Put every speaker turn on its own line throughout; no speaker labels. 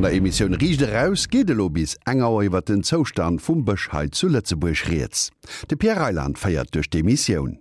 An der Emissioun Riicht Eraus geet elo bis eng Auer iwwer den Zoustand vum Bësch hei zu Lëtzebuerg rieds. De Pierre Reyland féiert duerch d'Emissioun.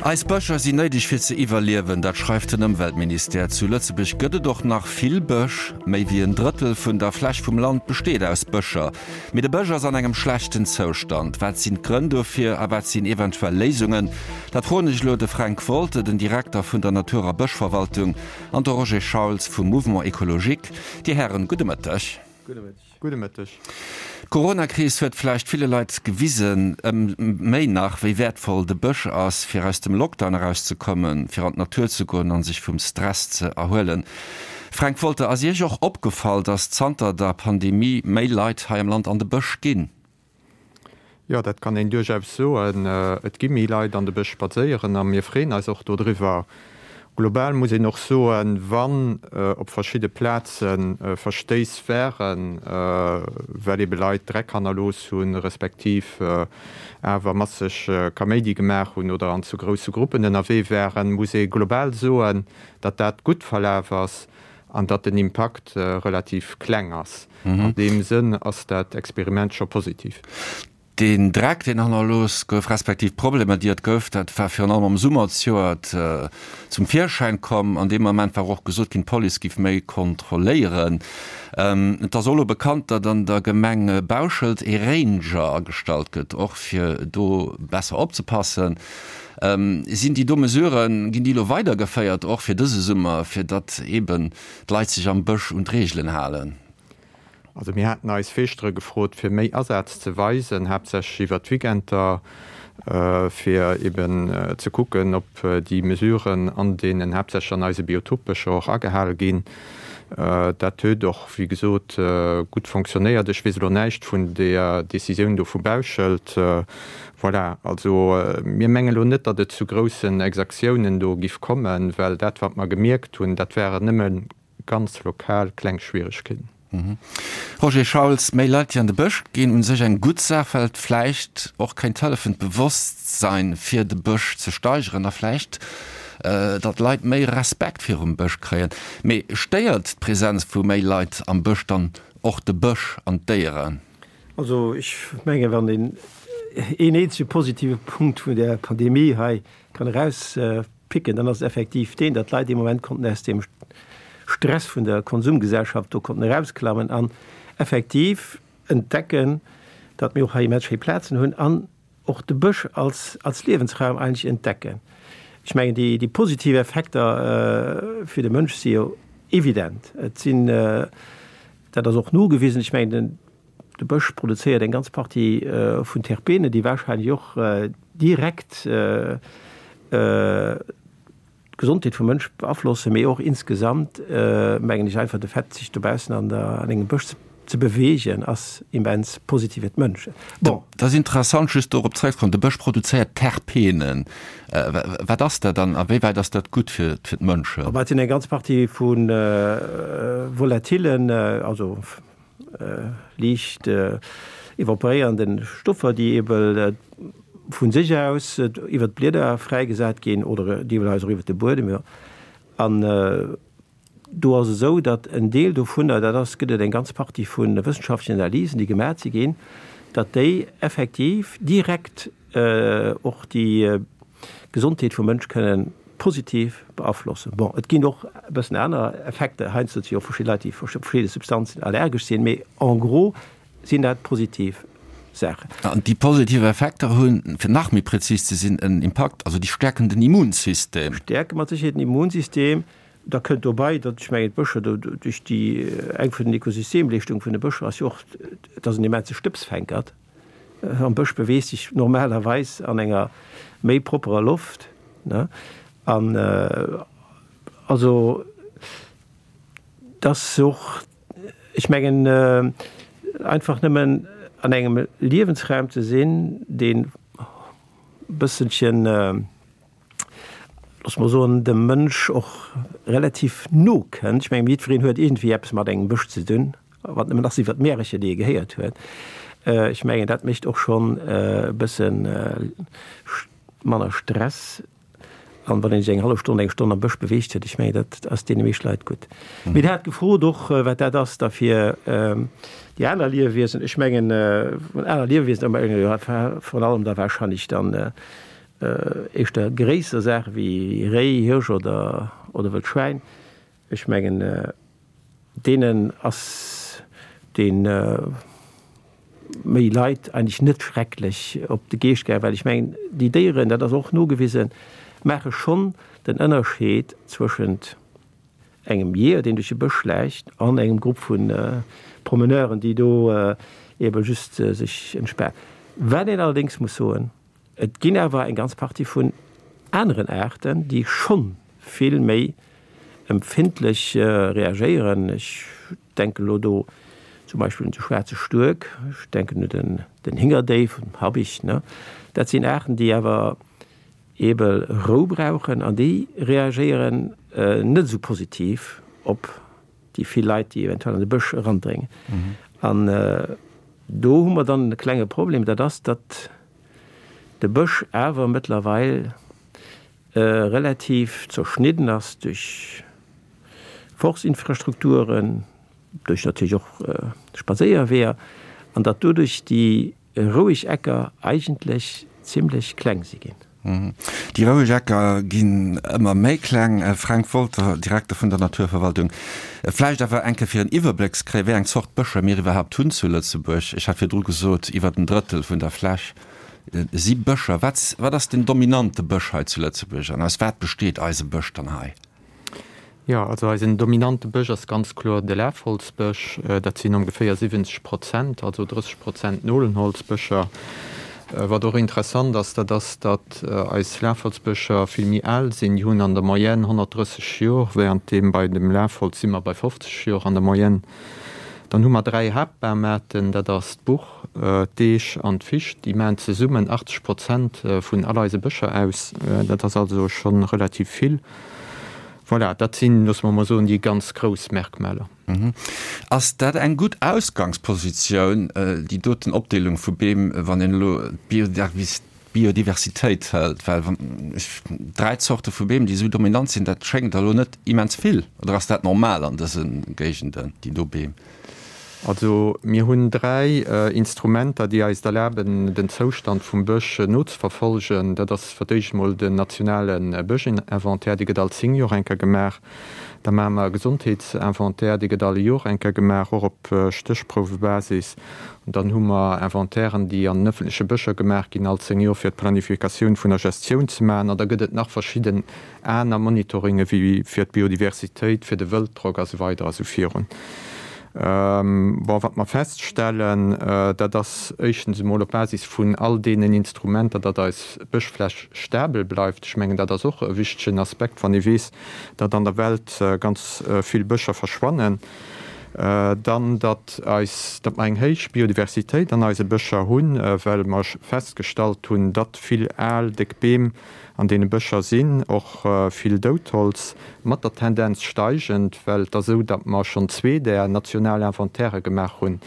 Eis Bëscher sinn néideg fir ze iwwerliewen, dat schreift den Ëmweltministère. Zu Lëtzebuerg gëtt et och nach vill Bësch. Méi wéi en Drëttel vun der Fläch vum Land besteet aus Bëscher. Mee de Bësch ass an engem schlechten Zoustand. Wat sinn d'Grënn dofir a wat sinn eventuell Léisungen? Dat froen ech elo de Fränk Wolter, den Direkter vun der Natur a Bëschverwaltung, an de Roger Schauls vum Mouvement Ecologique. Dir Hären, gudde Mëtteg.
Gudde Mëtteg. Gudde Mëtteg.
D'Coronakris huet vläicht ville Leit gewisen, ëm méi nach, wéi wäertvoll de Bësch ass, fir aus dem Lockdown erauszekommen, fir an d'Natur ze goen an sech vum Stress ze erhuelen. Fränk Wolter, ass Iech och opgefall, datt zanter der Pandemie méi Leit hei am Land an de Bësch ginn?
Jo, dat kann een duerchaus soen. Et gi méi Leit an de Bësch spadséieren a mir freeën eis och dodriwwer. Global muss een och soen, wann op verschidde Plaze Verstéiss waren, well ebe Leit Dreck hannerlooss hunn, respektiv awer masseg Kaméidi gemaach hunn oder an zu grousse Gruppen ënnerwee waren, muss ee global soen, datt dat gutt verlaf ass an datt den Impakt relativ kleng ass. An deem Sënn ass dat Experiment scho positiv.
Deen Dreck, deen hannerlooss gouf, respektiv d'Problemer, déi et gouf, dat war virun allem am Summer zejoert zum Virschäin komm. An deem Moment war och gesot ginn, d'Police géif méi kontrolléieren. Et ass och elo bekannt, datt an der Gemeng Bauschelt ee Ranger agestallt gëtt, och fir do besser opzepassen. Sinn déi do Mesuren, ginn déi elo weidergeféiert, och fir dëse Summer, fir datt eeben d'Leit sech am Bësch un d'Reegelen halen?
Also mir haten eis Feeschtere gefrot, fir méi Asaz ze weisen, haaptsächlech iwwert d'Weekender, fir eben ze kucken, ob déi Mesuren an deenen, haaptsächlech an eise Biotopbëscher och agehale ginn. Dat huet och, wéi gesot, gutt fonctionnéiert. Ech weess elo näischt vun där Decisioun do vu Bauschelt. Voilà, also mir mengen elo net, datt et zu groussen Exactiounen do giff kommen, well dat wat mer gemierkt hunn, dat waren nëmme ganz lokal kleng Schwieregkeeten.
Roger Schauls, Méi Leit déi an de Bësch ginn, u sech eng gutt Saach, well et vläicht och kéint hëllefen d'Bewosstsein fir de Bësch ze steigeren a vläicht datt d'Leit méi Respekt virum Bësch kréien. Mee stéiert d'Presenz vu méi Leit am Bësch dann och de Bësch an d'Déieren?
Also ech menge wann een een eenzege positive Punkt vun där Pandemie hei kann erauspicken, dann ass et effektiv deen, datt d'Leit dee Moment konnten aus deem Stress vun der Konsumgesellschaft do konnten erausklammen an effektiv entdecken, datt mir och hei immens schéi Plazen hunn an och de Bësch als als Liewensraum eigentlech entdecken. Ech mengen déi déi positiv Effekter fir de Mënsch si jo evident. Et sinn, dat ass och nogewisen, ech mengen den de Bësch produzéiert eng ganz Partie vun Terpenen, déi wahrscheinlech och direkt d'Gesondheet vum Mënsch beaflossen, mee och insgesamt mengen ech einfach de Fait sech dobaussen an der an engem Bësch ze beweegen ass immens positiv fir d'Mënschen.
Bon. Dat ass interessant, just dorop zréckzekommen, de Bësch produzéiert Terpenen. Wat ass dat an a wéi wäit ass dat gutt fir d'Mënschen?
Dat sinn eng ganz Partie vu Volatilen, also liicht evaporéierende Stoffer, déi ebe vu sech aus iwwer d'Blieder fräigesat ginn oder deelweis och iwwer de Buedem, jo. An do ass et esou, datt en Deel dovunner, dat ass, gëtt et eng ganz Partie vu wëssenschaftlechen Analysen, déi gemaach si ginn, datt déi effektiv direkt och déi Gesondheet vum Mënsch kënnen positiv beaflossen. Bon, et ginn och e bëssen aner Effekter, heiansdo si och verschidde Leit, déi op verschidde Substanzen allergesch sinn, mee en gros sinn dat positiv Saachen.
An déi positiv Effekter hunn, fir nach méi prezis ze sinn, en Impakt, also déi stäerken den Immunsystem.
Stäerke mat Sécherheet den Immunsystem. Da kënnt dobei, datt, ech mengen, d'Bëscher do duerch déi, eng vun den Ökosystemleeschtunge vun de Bëscher ass jo och, et ass en immense Stëbsfänkert. Am Bësch beweegt sech normalerweis an enger méi propperer Loft, ne? An also dass och, ech mengen, einfach nëmmen an engem Liewensraum ze sinn, deen e bësselchen, loosse mer soen, dem Mënsch och relativ no kënnt. Ech mengen, jiddwereen huet iergendwéi eppes mat engem Bësch ze dinn, wat nëmmen ass iwwer d'Märercher, déi e gehéiert huet. Ech mengen, dat mécht och schonn e bësse manner Stress. An wann een sech eng hallef Stonn, eng Stonn am Bësch beweegt huet, ech mengen, dat ass deene meescht Leit gutt. Mee Der hat gefrot och, wat dat ass da fir déi aner Liewewiesen. Ech mengen, aner Liewewiesen, virun allem da wahrscheinlech dann éischter gréisser Saache wéi Réi, Hirsch oder Wëld Schwäin. Ech mengen, deenen ass dee méi Leit eigentlech net schrecklech op de Geescht gaangen, well ech mengen, déi Déieren, dat ass och nogewisen, maache schonn den Ënnerscheed zwëschent engem Jeeër, deen duerch de Bësch schläicht, an engem Grupp vu Promeneuren, déi do ebe just sech entspanen. Wat een allerdéngs muss soen, Et ginn awer eng ganz Partie vun aneren Aarten, déi schonn vill méi empfindlech reagéieren. Ech denken elo do zum Beispill un de schwaarze Stuerk, ech denken un den Hingerdéif, den Habicht. Dat sinn Aarten, déi awer eebe Rou brauchen an déi reagéieren net esou positiv op déi vill Leit, déi eventuell an de Bësch erandréngen. An do hu mer dann e klenge Problem, dat ass, datt de Bësch awer mëttlerweil relativ zerschnidden ass duerch Forstinfrastrukturen, duerch natierlech och Spadséierweeër, an datt doduerch déi roueg Ecker eigentlech zimlech kleng si ginn.
Déi roueg Ecker ginn ëmmer méi kleng. Fränk Wolter, Direkter vun der Naturverwaltung, Vläicht awer eng Kéier fir en Iwwerbléck ze kréien, wéi eng Zort Bëscher mir iwwerhaapt hunn zu Lëtzebuerg. Ech hat virdru gesot, iwwer en Drëttel vun der Fläch si Bëscher. Wat, wat ass den dominante Bësch hei zu Lëtzebuerg an aus wat besteet eise Bësch dann hei?
Jo, also eisen dominante Bësch ass ganz kloer de Lafholzbësch. Dat sinn ongeféier 70 Prozent, also 30 Prozent Nolenholzbëscher. Wat och interessant ass, dat ass, datt eis Lafholzbëscher vill méi al sinn. Déi hunn an der Moyenne 130 Jor, währenddeem bei dem Lafholz si mer bei 50 Jor an der Moyenne. Dann hu mer dräi Haaptbamaarten, dat ass d'Buch, d'Eech an d'Ficht. Déi maachen zesummen 80 Prozent vun all eise Bëscher aus. Dat ass also scho relativ vill. Voilà, dat sinn, loosse mer emol soen, déi ganz grouss Merkmaler.
Ass dat eng gutt Ausgangspositioun, déi doten Opdeelung vu Beem, wann een elo d'Biodiversitéit hëlt? Well wann ech dräi Zorte vu Beem, déi esou dominant sinn, dat schéngt der elo net immens vill. Oder ass dat normal an dëse Géigenden, déi do Beem?
Also mir hunn dräi Instrumenter, déi eis et erlaben, den Zoustand vum Bësch nozeverfolgen. Dat ass fir d'éischt emol den nationale Bëschinventaire, dee gëtt all 10 Joer eng Kéier gemaach. Da maache mer e Gesondheetsinventaire, dee gëtt all Joer eng Kéier gemaach, och op Stéchprouwebasis. An dann hu mer Inventairen, déi an den ëffentleche Bëscher gemaach ginn, all 10 Joer, fir d'Planifikatioun vun der Gestioun ze maachen. An da gëtt et nach verschidden aner Monitoringe wéi fir d'Biodiversitéit, fir de Wëlddrock a sou weider a sou virun. Bon, wat mer feststellen, dat ass éischtens emol op Basis vun all deenen Instrumenter, datt eis Bëschfläch stabel bleift. Ech mengen, dat ass och e wichtegen Aspekt, wann ee weess, datt an der Welt ganz vill Bëscher verschwannen. Dann, datt eis, datt mer eng héich Biodiversitéit an eise Bëscher hunn, well mer festgestallt hunn, datt vill al, déck Beem An deene Bëscher sinn och vill Doudholz, mat der Tendenz steigend, well et ass esou, datt mer schonn zwee där national Inventairë gemaach hunn.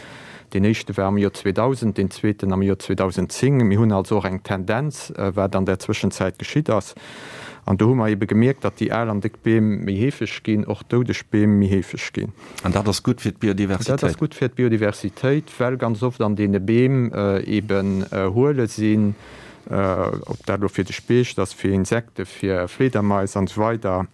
Deen éischte war am Joer 2000, deen zweeten am Joer 2010. Mir hunn also och eng Tendenz, wat an där Zwëschenzäit geschitt ass. An do hu mer eebe gemierkt, datt déi al an déck Beem méi heefeg ginn, och doudeg Beem méi heefeg ginn.
An dat ass gutt fir d'Biodiversitéit?
Dat ass gutt fir d'Biodiversitéit, well ganz oft an deene Beem eeben Huele sinn, ob dat elo fir de Speecht ass, fir Insekten, fir Fliedermais an esou weider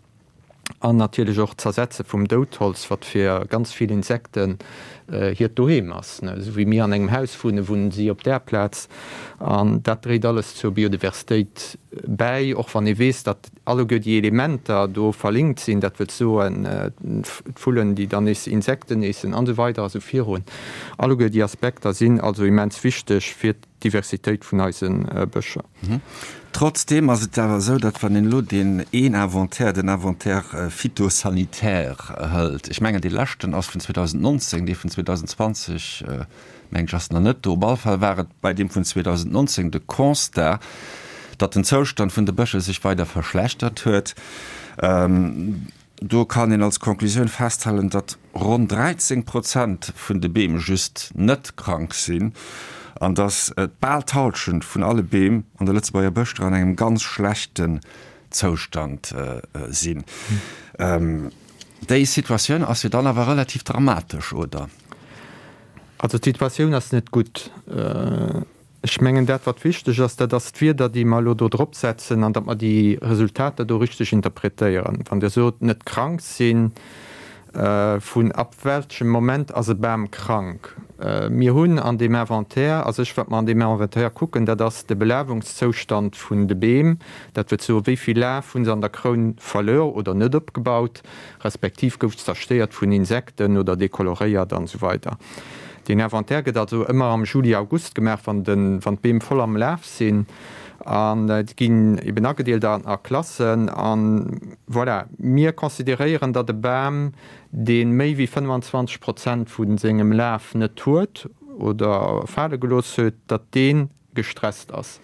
an natierlech och d'Zersetze vum Doudholz, wat fir ganz vill Insekten hiert Doheem ass. Esou wéi mir an engem Haus wunnen, wunnen si op där Plaz an dat dréit alles zur Biodiversitéit bäi, och wann ee weess, datt alleguer déi Elementer do verlinkt sinn, dat wëllt soen, d'Vullen, déi dann nees Insekten eessen an esou weider a sou virun. Alleguer déi Aspekter sinn also immens wichteg fir d'Diversitéit vun eise Bëscher.
Trotzdeem ass et awer esou, datt wann een elo deen een Inventaire, den Inventaire phytosanitaire hëlt, ech mengen dee leschten ass vun 2019, dee vun 2020 mengen ech ass nach net do, op alle Fall war et bei deem vun 2019 de Constat, datt den Zoustand vun de Bëscher sech weider verschlechtert huet. Do kann een als Conclusioun festhalen, datt ronn 13 Prozent vun de Beem just net krank sinn an datt bal d'Hallschent vun alle Beem an de Lëtzebuerger Bëschter an engem ganz schlechten. Zoustand sinn. Déi Situatioun ass jo dann awer relativ dramatesch, oder?
Also d'Situatioun ass net gutt. Ech mengen, dat wat wichteg ass, dat ass d'Wierder, déi mer elo do drop setzen an datt mer déi Resultater do richteg interpretéieren. Wann Dir sot, net krank sinn, vun ab welchem Moment ass e Bam krank? Mir hunn an deem Inventaire, a sech wat mer an deem Inventaire kucken, dat ass de Belawungszoustand vun de Beem, dat wëllt soen, wéi vill Laf hu se an der Kroun verluer oder net opgebaut, respektiv gouf zerstéiert vun Insekten oder dekoloréiert an esou weider. Deen Inventaire gëtt also ëmmer am Juli, August gemaach, wann de, wann d'Beem voll am Laf sinn an déi ginn eben agedeelt a a Klassen an voilà. Mir consideréieren, datt e Bam, dee méi wéi 25 Prozent vu sengem Laf net huet oder fale gelooss huet, datt dee gestresst ass.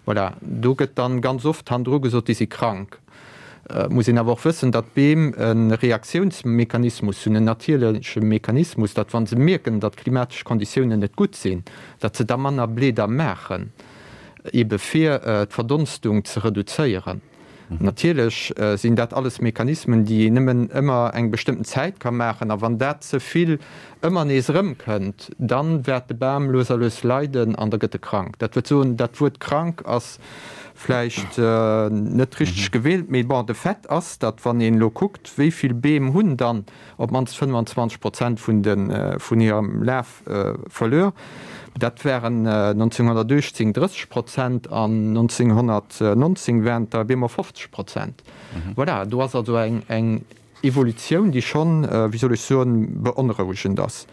Voilà, do gëtt dann ganz oft hannendru gesot, déi si krank. Et muss een awer och wëssen, datt d'Beem e Reaktiounsmechanismus hunn, en natierleche Mechanismus, datt wa se mierken, datt d'klimatesch Konditiounen net gutt sinn, datt se da manner Blieder maachen, ebe fir d'Verdonstung ze reduzéieren. Natierlech sinn dat alles Mechanismen, déi een nëmmen ëmmer eng bestëmmten Zäit ka maachen. A wann dat ze vill ëmmer nees erëmkënnt, dann wäert de Bam lues a lues leiden an da gëtt e krank. Dat wëllt soen, dat Wuert krank ass vläicht net richteg gewielt, mee bon, de Fait ass, datt wann een elo kuckt, wéi vill Beem hunn dann op d'mannst 25 Prozent vun de vun hirem Laf verluer. Dat waren 1918 30 Prozent an 1919 waren et der op eemol 50 Prozent. Voilà, do ass also eng eng Evolutioun, déi schonn, wéi soll ech soen, beonrouegend ass.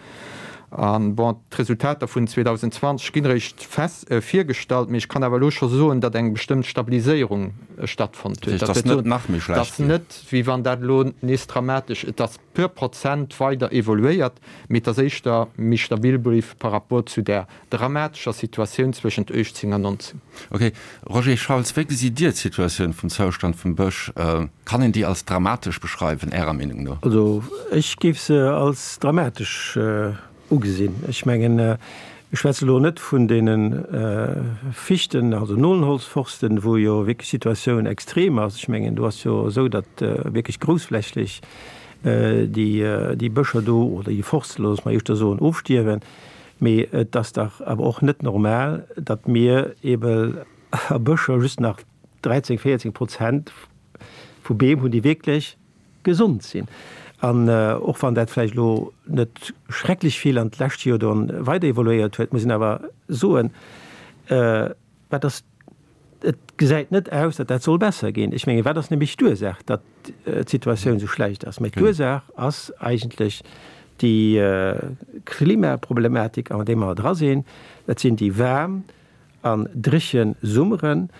An bon, d'Resultater vun 2020 ginn eréischt fest virgestallt, mee ech kann awer elo scho soen, datt eng bestëmmt Stabiliséierung stattfonnt huet.
Dat ass net nach méi schlecht
ginn. Et ass net, wéi wann dat elo nees dramatesch, et ass puer Prozent weider evoluéiert, mee et ass éischter méi stabil bliww par rapport zu där dramatescher Situatioun zwëschent 18 an 19.
Ok. Roger Schauls, wéi gesitt Dir d'Situatioun vum Zoustand vum Bësch? Kann een déi als dramatesch beschreiwen, Ärer Meenung no?
Also ech géif se als dramatesch ugesinn. Ech mengen, ech schwätze elo net vun deene Fichten, also Nolenholzforsten, wou jo wierklech d'Situatioun extrem ass. Ech mengen, do ass jo esou, datt wierklech groussflächlech déi Bëscher do, oder déi Forste, loosse mer éischter soen, ofstierwen. Mee et ass dach awer och net normal, datt mir eebe a Bëscher just nach 13, 14 Prozent vu Beem hunn, déi wierklech gesond sinn. An och wann dat vläicht elo net schrecklech vill an d'lescht Joer do weider evoluéiert huet, muss een awer soen, wat ass, et gesäit net aus, datt dat soll besser ginn. Ech mengen, wat ass nämlech d'Ursaach, datt d'Situatioun esou schlecht ass? Mä d'Ursaach ass eigentlech déi Klimaproblematik, an där mer dra sinn. Dat sinn déi waarm an dréche Summeren,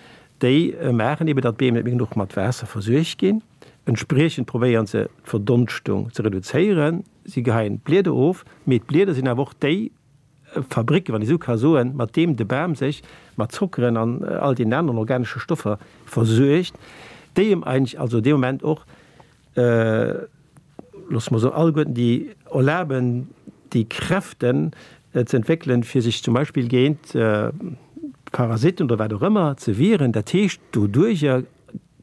déi maachen eeben, datt d'Beem net méi genuch mat Waasser versuergt ginn. Entspriechend probéieren se d'Verdonschtung ze reduzéieren. Si geheien d'Blieder of, mee d'Blieder sinn awer och déi Fabricken, wann ee sou ka soen, mat deem de Bam sech mat Zockeren an all deenen aneren organesche Stoffer versuergt, déi em eigentlech also dee Moment och, loosse mer soen, alleguerten déi erlaben, déi Kräften ze entwéckelen, fir sech zum Beispill géint Parasiten oder wat och ëmmer ze wieren. Dat heescht, doduerjer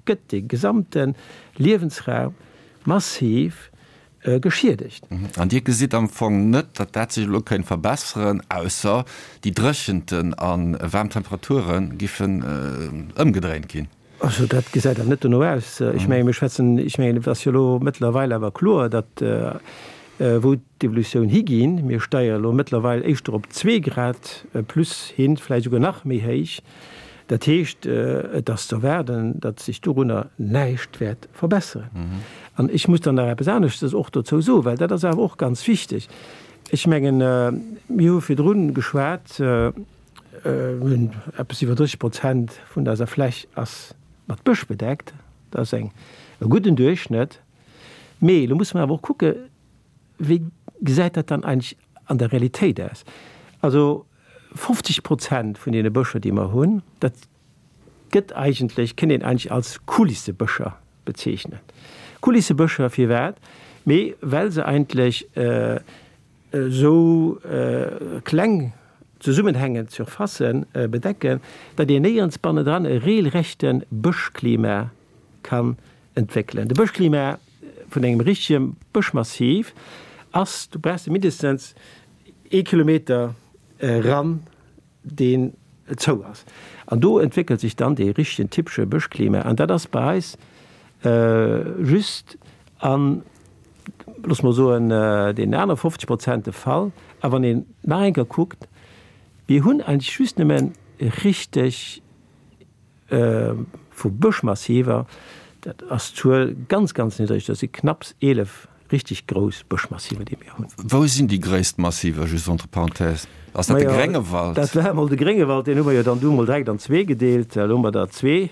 gëtt de gesamte Liewensraum massiv geschiedegt.
An Dir gesitt am Fong net, datt dat sech elo kéint verbesseren, ausser déi Dréchenten a waarm Temperature giffen ëmgedréint ginn?
Also dat gesäit awer net dono aus. Ech menge mir schwätzen, ech mengen et ass jo elo mëttlerweil awer kloer, datt wou d'Evolutioun higinn, mir steiere elo mëttlerweil éischter op zwee Grad plus hin, vläicht esouguer nach méi héich. Dat heescht, et ass ze erwaarden, datt sech dorunner näischt wäert verbesseren. An ech muss dann nach eppes aneschtes och dozou soen, well dat ass awer och ganz wichteg. Ech mengen, mir hu virdrun geschwat, Mir hunn eppes iwwer 30 Prozent vun eiser Fläch ass mat Bësch bedeckt. Dat ass eng e gudden Duerchschnëtt. Mee elo musse mer awer och kucke wéi gesäit dat dann eigentlech an der Realitéit aus. Also 50 Prozent vun deene Bëscher, déi mer hunn, dat gëtt eigentlech, kënnt een eigentlech als Kulissebëscher bezeechnen. Kulissebëscher firwat? Mee well se eigentlech esou kleng zesummenhängend Surfacen bedecken, datt een néierens bannendran e reelrechte Bëschklima. kann entwéckelen. De Bëschklima vun engem richtege Bëschmassiv ass, do brauchs de mindestens ee Kilometer eran, deen zou ass. An do entwéckelt sech dann dee richtegen typesche Bëschklima. An dat ass bei eis just an, loosse mer soen, deenen anere 50 Prozent de Fall. A wann een nach eng Kéier kuckt, mir hunn eigentlech just nëmme richteg vu Bëschmassiver, dat ass d'Zuel ganz, ganz niddreg, dat si knapps 11 richteg grouss Bëschmassiver, déi mir hunn.
Wou sinn déi gréisst Massiver, just entre parenthèses? Ass dat de Gréngewald?
Dat war emol de Gréngewald, deen hu mer jo dann du emol direkt an zwee gedeelt. Elo hu mer der zwee.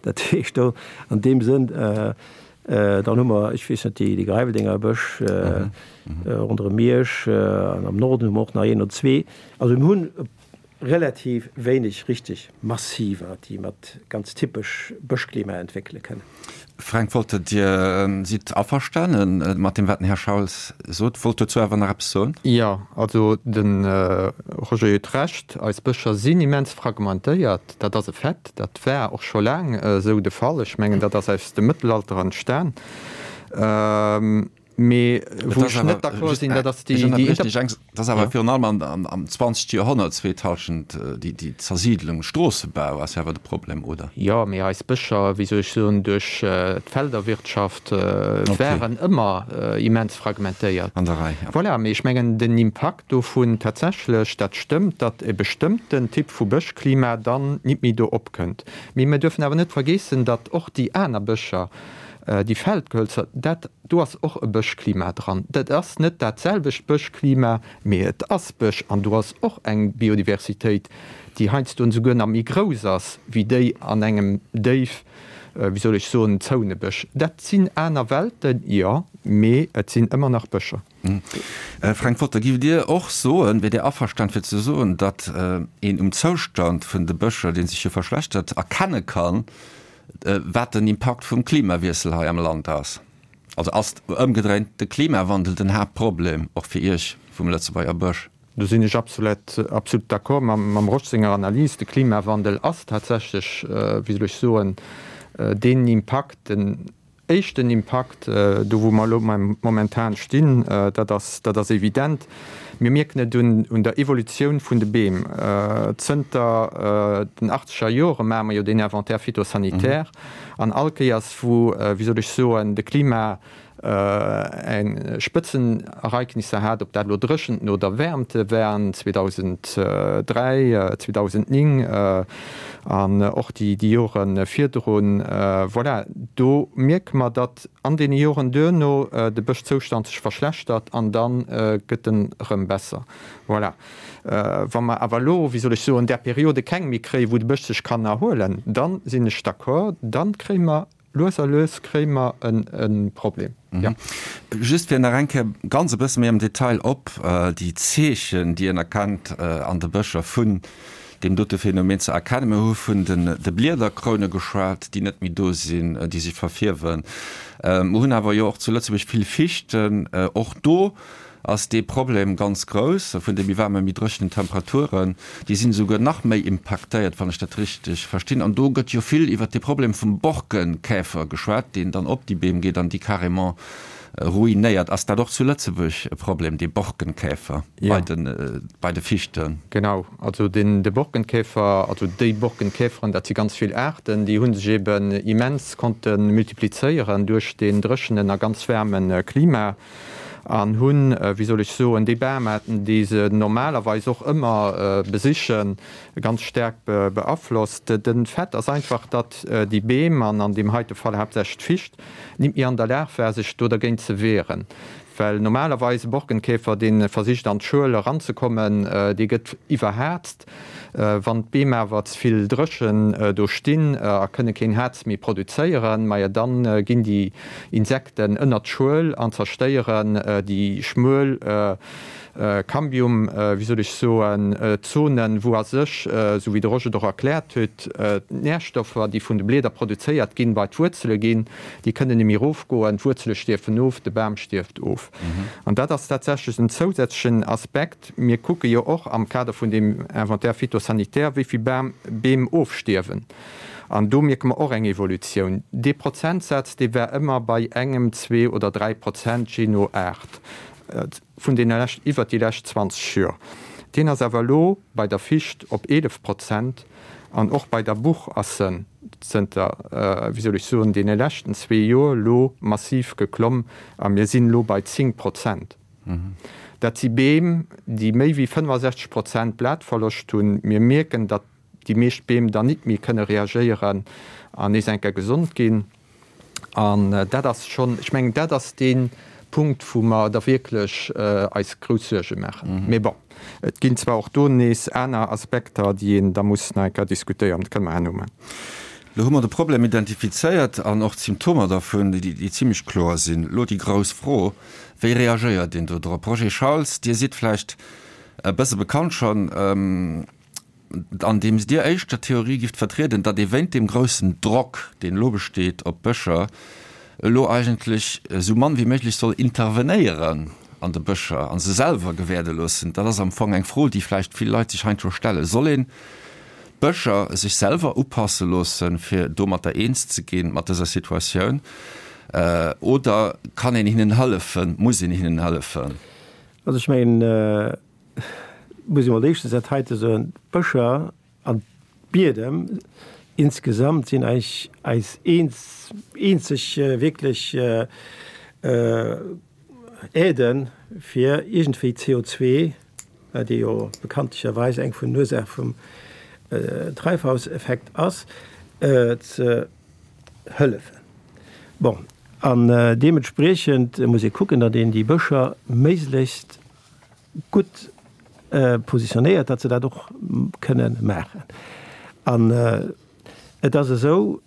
Dat heescht do an deem Sënn, dann hu mer, ech weess net, déi Greiweldenger Bësch ronderëm Miersch an am Norden hu mer och nach een oder zwee. Also mir hunn relativ wéineg richteg Massiver, déi mat ganz typesch Bëschklima entwéckele kënnen.
Fränk Wolter, Dir sidd averstane mat deem, wat den Här Schauls sot, wollt dozou awer nach eppes soen.
Jo, also de Roger huet Recht, eis Bëscher sinn immens fragmentéiert, dat ass e Fait, dat war och scho laang esou de Fall. Ech mengen, dat ass aus dem Mëttelalter entstan. Mee wou ech net d'accord sinn, dat ass déi.
Dat ass awer virun allem am 20. Joerhonnert, zweet Hallschent, déi Zersiidlung, Stroossebau ass jo awer de Problem, oder?
Jo, mee eis Bëscher, wéi soll ech soen, duerch d'Felderwirtschaft waren ëmmer immens fragmentéiert.
An der Rei,
jo. Voilà, mee ech mengen, den Impakt dovun tatsächlech, dat stëmmt, datt e bestëmmten Typ vu Bëschklima dann nit méi do opkënnt. Mee mir duerfen awer net vergeessen, datt och déi aner Bëscher, Déi Feldgehölzer, dat do ass och e Bëschklima dran. Dat ass net dat selwecht Bëschklima, mee et ass Bësch an do ass och eng Biodiversitéit, déi heiansdo esouguer nach méi grouss ass wéi déi an engem déif, wéi soll ech soen, zoune Bësch. Dat sinn aner Welten, jo, mee et sinn ëmmer nach Bëscher.
Fränk Wolter, Giff Dir och soen, wier Dir averstan fir ze soen, datt een um Zoustand vun de Bëscher, dee sech jo verschlechtert, erkenne kann, wat den Impakt vum Klimawiessel hei am Land ass? Also ass ëmgedréint de Klimawandel den Haaptproblem och fir Iech vum Lëtzebuerger Bësch?
Do sinn ech absolut, absolut d'accord mam Rosch senger Analys. De Klimawandel ass tatsächlech, wéi soll ech soen, deen Impakt, den éischten Impakt, do wou mer elo momentan stinn, dat ass, dat ass evident. Mir mierken et un der Evolutioun vun de Beem. Zënter den achtzeger Jore maache mer jo deen Inventaire phytosanitaire an all Kéiers wou, wéi soll ech soen, de Klima eng Spëtzenereignisser hat, ob dat elo Dréchenten oder Wäermte waren, 2003, 2009 an och déi Jore virdrun, voilà, do mierke mer, datt An deene Joren duerno de Bëschzoustand sech verschlechtert an da gëtt en erëm besser. Voilà. Wa mer awer elo, wéi soll ech soen, där Periode keng méi kréien, wou de Bësch sech kann erhuelen, da sinn ech d'accord, da kréie mer lues a lues kréie mer e Problem, jo.
Just fir nach eng Kéier ganz e bësse méi am Detail op déi Zeechen, déi een erkennt an de Bëscher vun deem dote Phänomen ze erkennen. Mir hu vun de Bliederkroune geschwat, déi net méi do sinn, déi sech verfierwen. Mer hunn awer jo och zu Lëtzebuerg vill Fichten. Och do ass dee Problem ganz grouss vun de méi waarmen, méi dréchenen Temperaturen. Déi sinn esouguer nach méi impaktéiert, wann ech dat richteg verstinn. An do gëtt jo vill iwwert de Problem vum Borkenkäfer geschwat, deen dann op déi Beem geet an déi carrément ruinéiert. Ass dat och zu Lëtzebuerg e Problem, dee Borkenkäfer bei de, bei de Fichten?
Genau, also den, de Borkenkäfer, also déi Borkenkäferen, dat si ganz vill Aarten, déi hu sech eben immens konnte multiplizéieren duerch deen dréchenen a ganz waarme Klima an hunn, wéi soll ech soen, déi Bamaarten, déi se normalerweis och ëmmer besichen, ganz staark beaflosst. De Fait ass einfach, datt déi Beem, an an deem heite Fall haaptsächlech d'Ficht, nit méi an der Lag war, sech do dergéint ze wehren. Well normalerweis e Borkenkäfer, dee versicht an d'Schuel eranzekommen, dee gëtt iwwerhazt. Wann d'Beem awer ze vill dréchen do stinn a kënne keen Haarz méi produzéieren, maja dann ginn déi Insekten ënnert d'Schuel an zerstéieren déi schmuel Cambium, wéi soll ech soen, Zonen, wou a sech, esou wéi de Roger et och erkläert huet, d'Närstoffer, déi vun de Blieder produzéiert ginn, bei d'Wuerzele ginn. Déi kënnen net méi erofgoen, d'Wuerzele stierfen of, de Bam stierft of. of. An dat ass tatsächlech en zousätzlechen Aspekt. Mir kucke jo och am Kader vun deem Inventaire phytosanitaire, wéi vill Bam, Beem ofstierwen. An do mierke mer och eng Evolutioun. Dee Prozentsaz, dee war ëmmer bei engem, zwee oder 3 Prozent, jee no Aart, vun deene lescht, iwwert déi lescht 20 Jor. Deen ass awer elo bei der Ficht op 11 Prozent an och bei der Buch ass en zënter, wéi soll ech soen, deene leschten zwee Jor elo massiv geklomm a mir sinn elo bei 10 Prozent. Dat si Beem, déi méi wéi 65 Prozent Blatverloscht hunn. Mir mierken, datt déi meescht Beem dann nit méi kënne reagéieren an nees eng Kéier gesond ginn. An dat ass schonn, ech mengen, dat ass dee Punkt, wou mer da wierklech eis grouss Suerge maachen. Mee bon, et ginn zwar och do nees aner Aspekter, déi een da muss nach eng Kéier diskutéieren. Dat kënne mer herno maachen.
Elo hu mer de Problem identifizéiert an och d'Symptomer dervun, déi zimlech kloer sinn. Elo déi grouss Fro, Wéi reagéiert een do drop? Roger Schauls, Dir sidd vläicht e bësse bekannt schonn. Andeems Dir éischter d'Theorie gift vertrieden, datt ee wéint deem groussen Drock, deen elo besteet op d'Bëscher, elo eigentlech esou mann wéi méiglech soll intervenéieren an de Bëscher a se selwer gewäerde loossen. Dat ass am Fong eng Fro, déi vläicht vill Leit sech heiansdo stellen. Soll een d'Bëscher sech selwer upasse loossen, fir domatter eens ze ginn, mat dëser Situatioun, oder kann een hinnen hëllefen, muss een hinnen hëllefen?
Also ech mengen, muss ee mol éischtens dat heite soen, D'Bëscher an d'Biedem insgesamt sinn eigentlech eis eenzeg wierklech Aiden, fir iergendwéi CO2, dee jo bekanntlecherweis eng vun den Ursaache vum Treibhauseffekt ass, ze hëllefen. Bon, an deementspriechend muss ee kucken, datt een déi Bëscher méiglechst gutt positionéiert, datt se dat och kënne maachen. An et ass esou,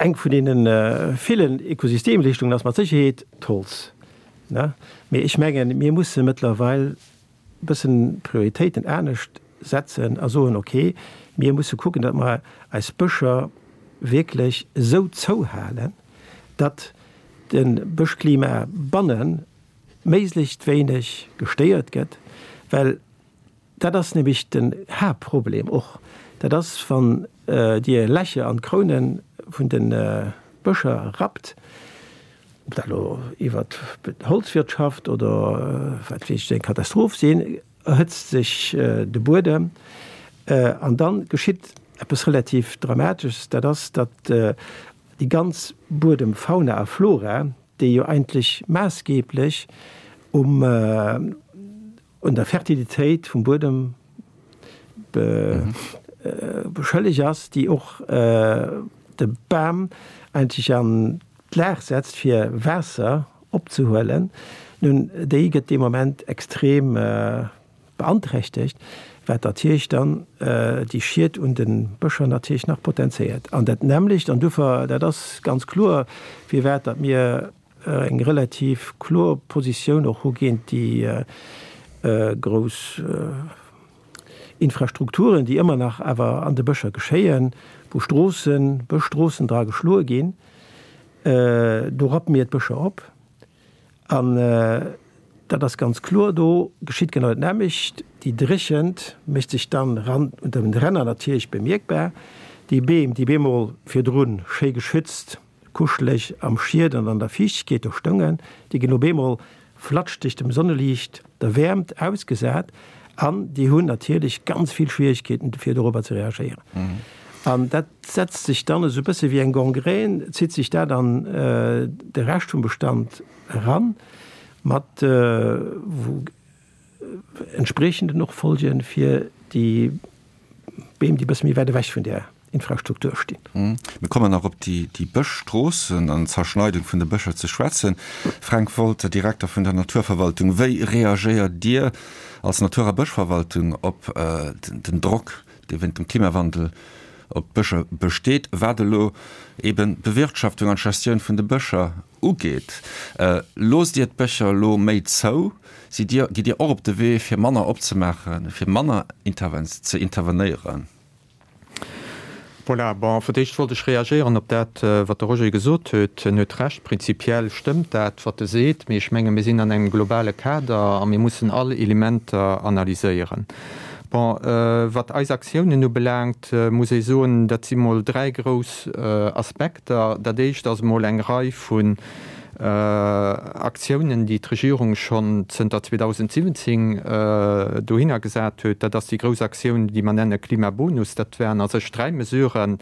eng vun deene villen Ökosystemleeschtungen ass mat Sécherheet d'Holz. Mee ech mengen, mir musse mëttlerweil e bëssen d'Prioritéiten anescht setzen a soen, okay, mir musse kucken, datt mer eis Bëscher wierklech esou zouhalen, datt de Bëschklima bannen méiglechst wéineg gestéiert gëtt, well dat ass nämlech den Haaptproblem och, dat ass wann Dir Lächer an d'Kroune vun de Bëscher rappt, ob dat elo iwwert d'Holzwirtschaft oder wat weess ech, eng Katastroph sinn, erhëtzt sech de Buedem an dann geschitt eppes relativ Dramatesches, dat ass, datt déi ganz Buedemfauna a flora, déi jo eigentlech maassgeblech um un der Fertilitéit vum Buedem beschëlleg ass, déi och de Bam eigentlech an d'Lag setzt fir Waasser opzehuelen, nun déi gëtt dee Moment extrem beanträchtegt, wat natierlech dann déi Schied un de Bëscher natierlech nach potenzéiert. An dat nämmlecht, an duerfir, dat ass ganz kloer, firwat datt mir eng relativ kloer Positioun och hu géint déi grouss Infrastrukturen, déi ëmmer nach awer an de Bëscher geschéien, wou Stroossen, Bëschstroossen dra geschloe ginn, do rappe mir d'Bëscher op. An dat ass ganz kloer, do geschitt genau dat nämmlecht, déi Dréchent mécht sech dann ran unter den Ränner natierlech bemierkbar. Déi Beem, déi bemol virdrun schéi geschützt, kuscheleg am Schied an an der Fiichtegkeet do stoungen, déi ginn op eemol flatschdeg dem Sonneliicht, der Wäermt ausgesat an déi hunn natierlech ganz vill Schwierigkeeten, fir dorobber ze reagéieren. An dat setzt sech dann esou e bësse wéi eng Gangrène, zitt sech dat an de Rescht vum Bestand eran, mat entspriechenden och Folge fir déi Beem, déi e bësse méi wäit ewech vun där Infrastruktur stinn.
Mir kommen nach op déi Bëschstroossen an d'Zerschneidung vun de Bëscher ze schwätzen. Fränk Wolter, Direkter vun der Naturverwaltung, wéi reagéiert Dir als Natur a Bëschverwaltung op den Drock, dee wéint dem Klimawandel op d'Bëscher besteet, wat elo eben d'Bewirtschaftung an d'Gestioun vun de Bëscher ugeet? Loosst Dir d'Bëscher elo méi zou? Sidd Dir, gitt Dir och op de Wee fir manner opzemaachen, fir manner ze intervenéieren?
Voilà, bon, fir d'éischt wollt ech reagéieren op dat, wat de Roger gesot huet. En huet Recht, prinzipiell stëmmt dat, wat e seet, mee ech menge mir sinn an engem globale Kader a mir mussen all Elementer analyséieren. Bon, wat eis Aktiounen ubelaangt, muss ee soen, dat si mol dräi grouss Aspekter. Dat éischt ass emol eng Rei vun Aktiounen, déi d'Regierung schonn zënter 2017 dohinner gesat huet. Dat ass déi grouss Aktioun, déi mer nenne Klimabonus. Dat waren a sech dräi Mesuren.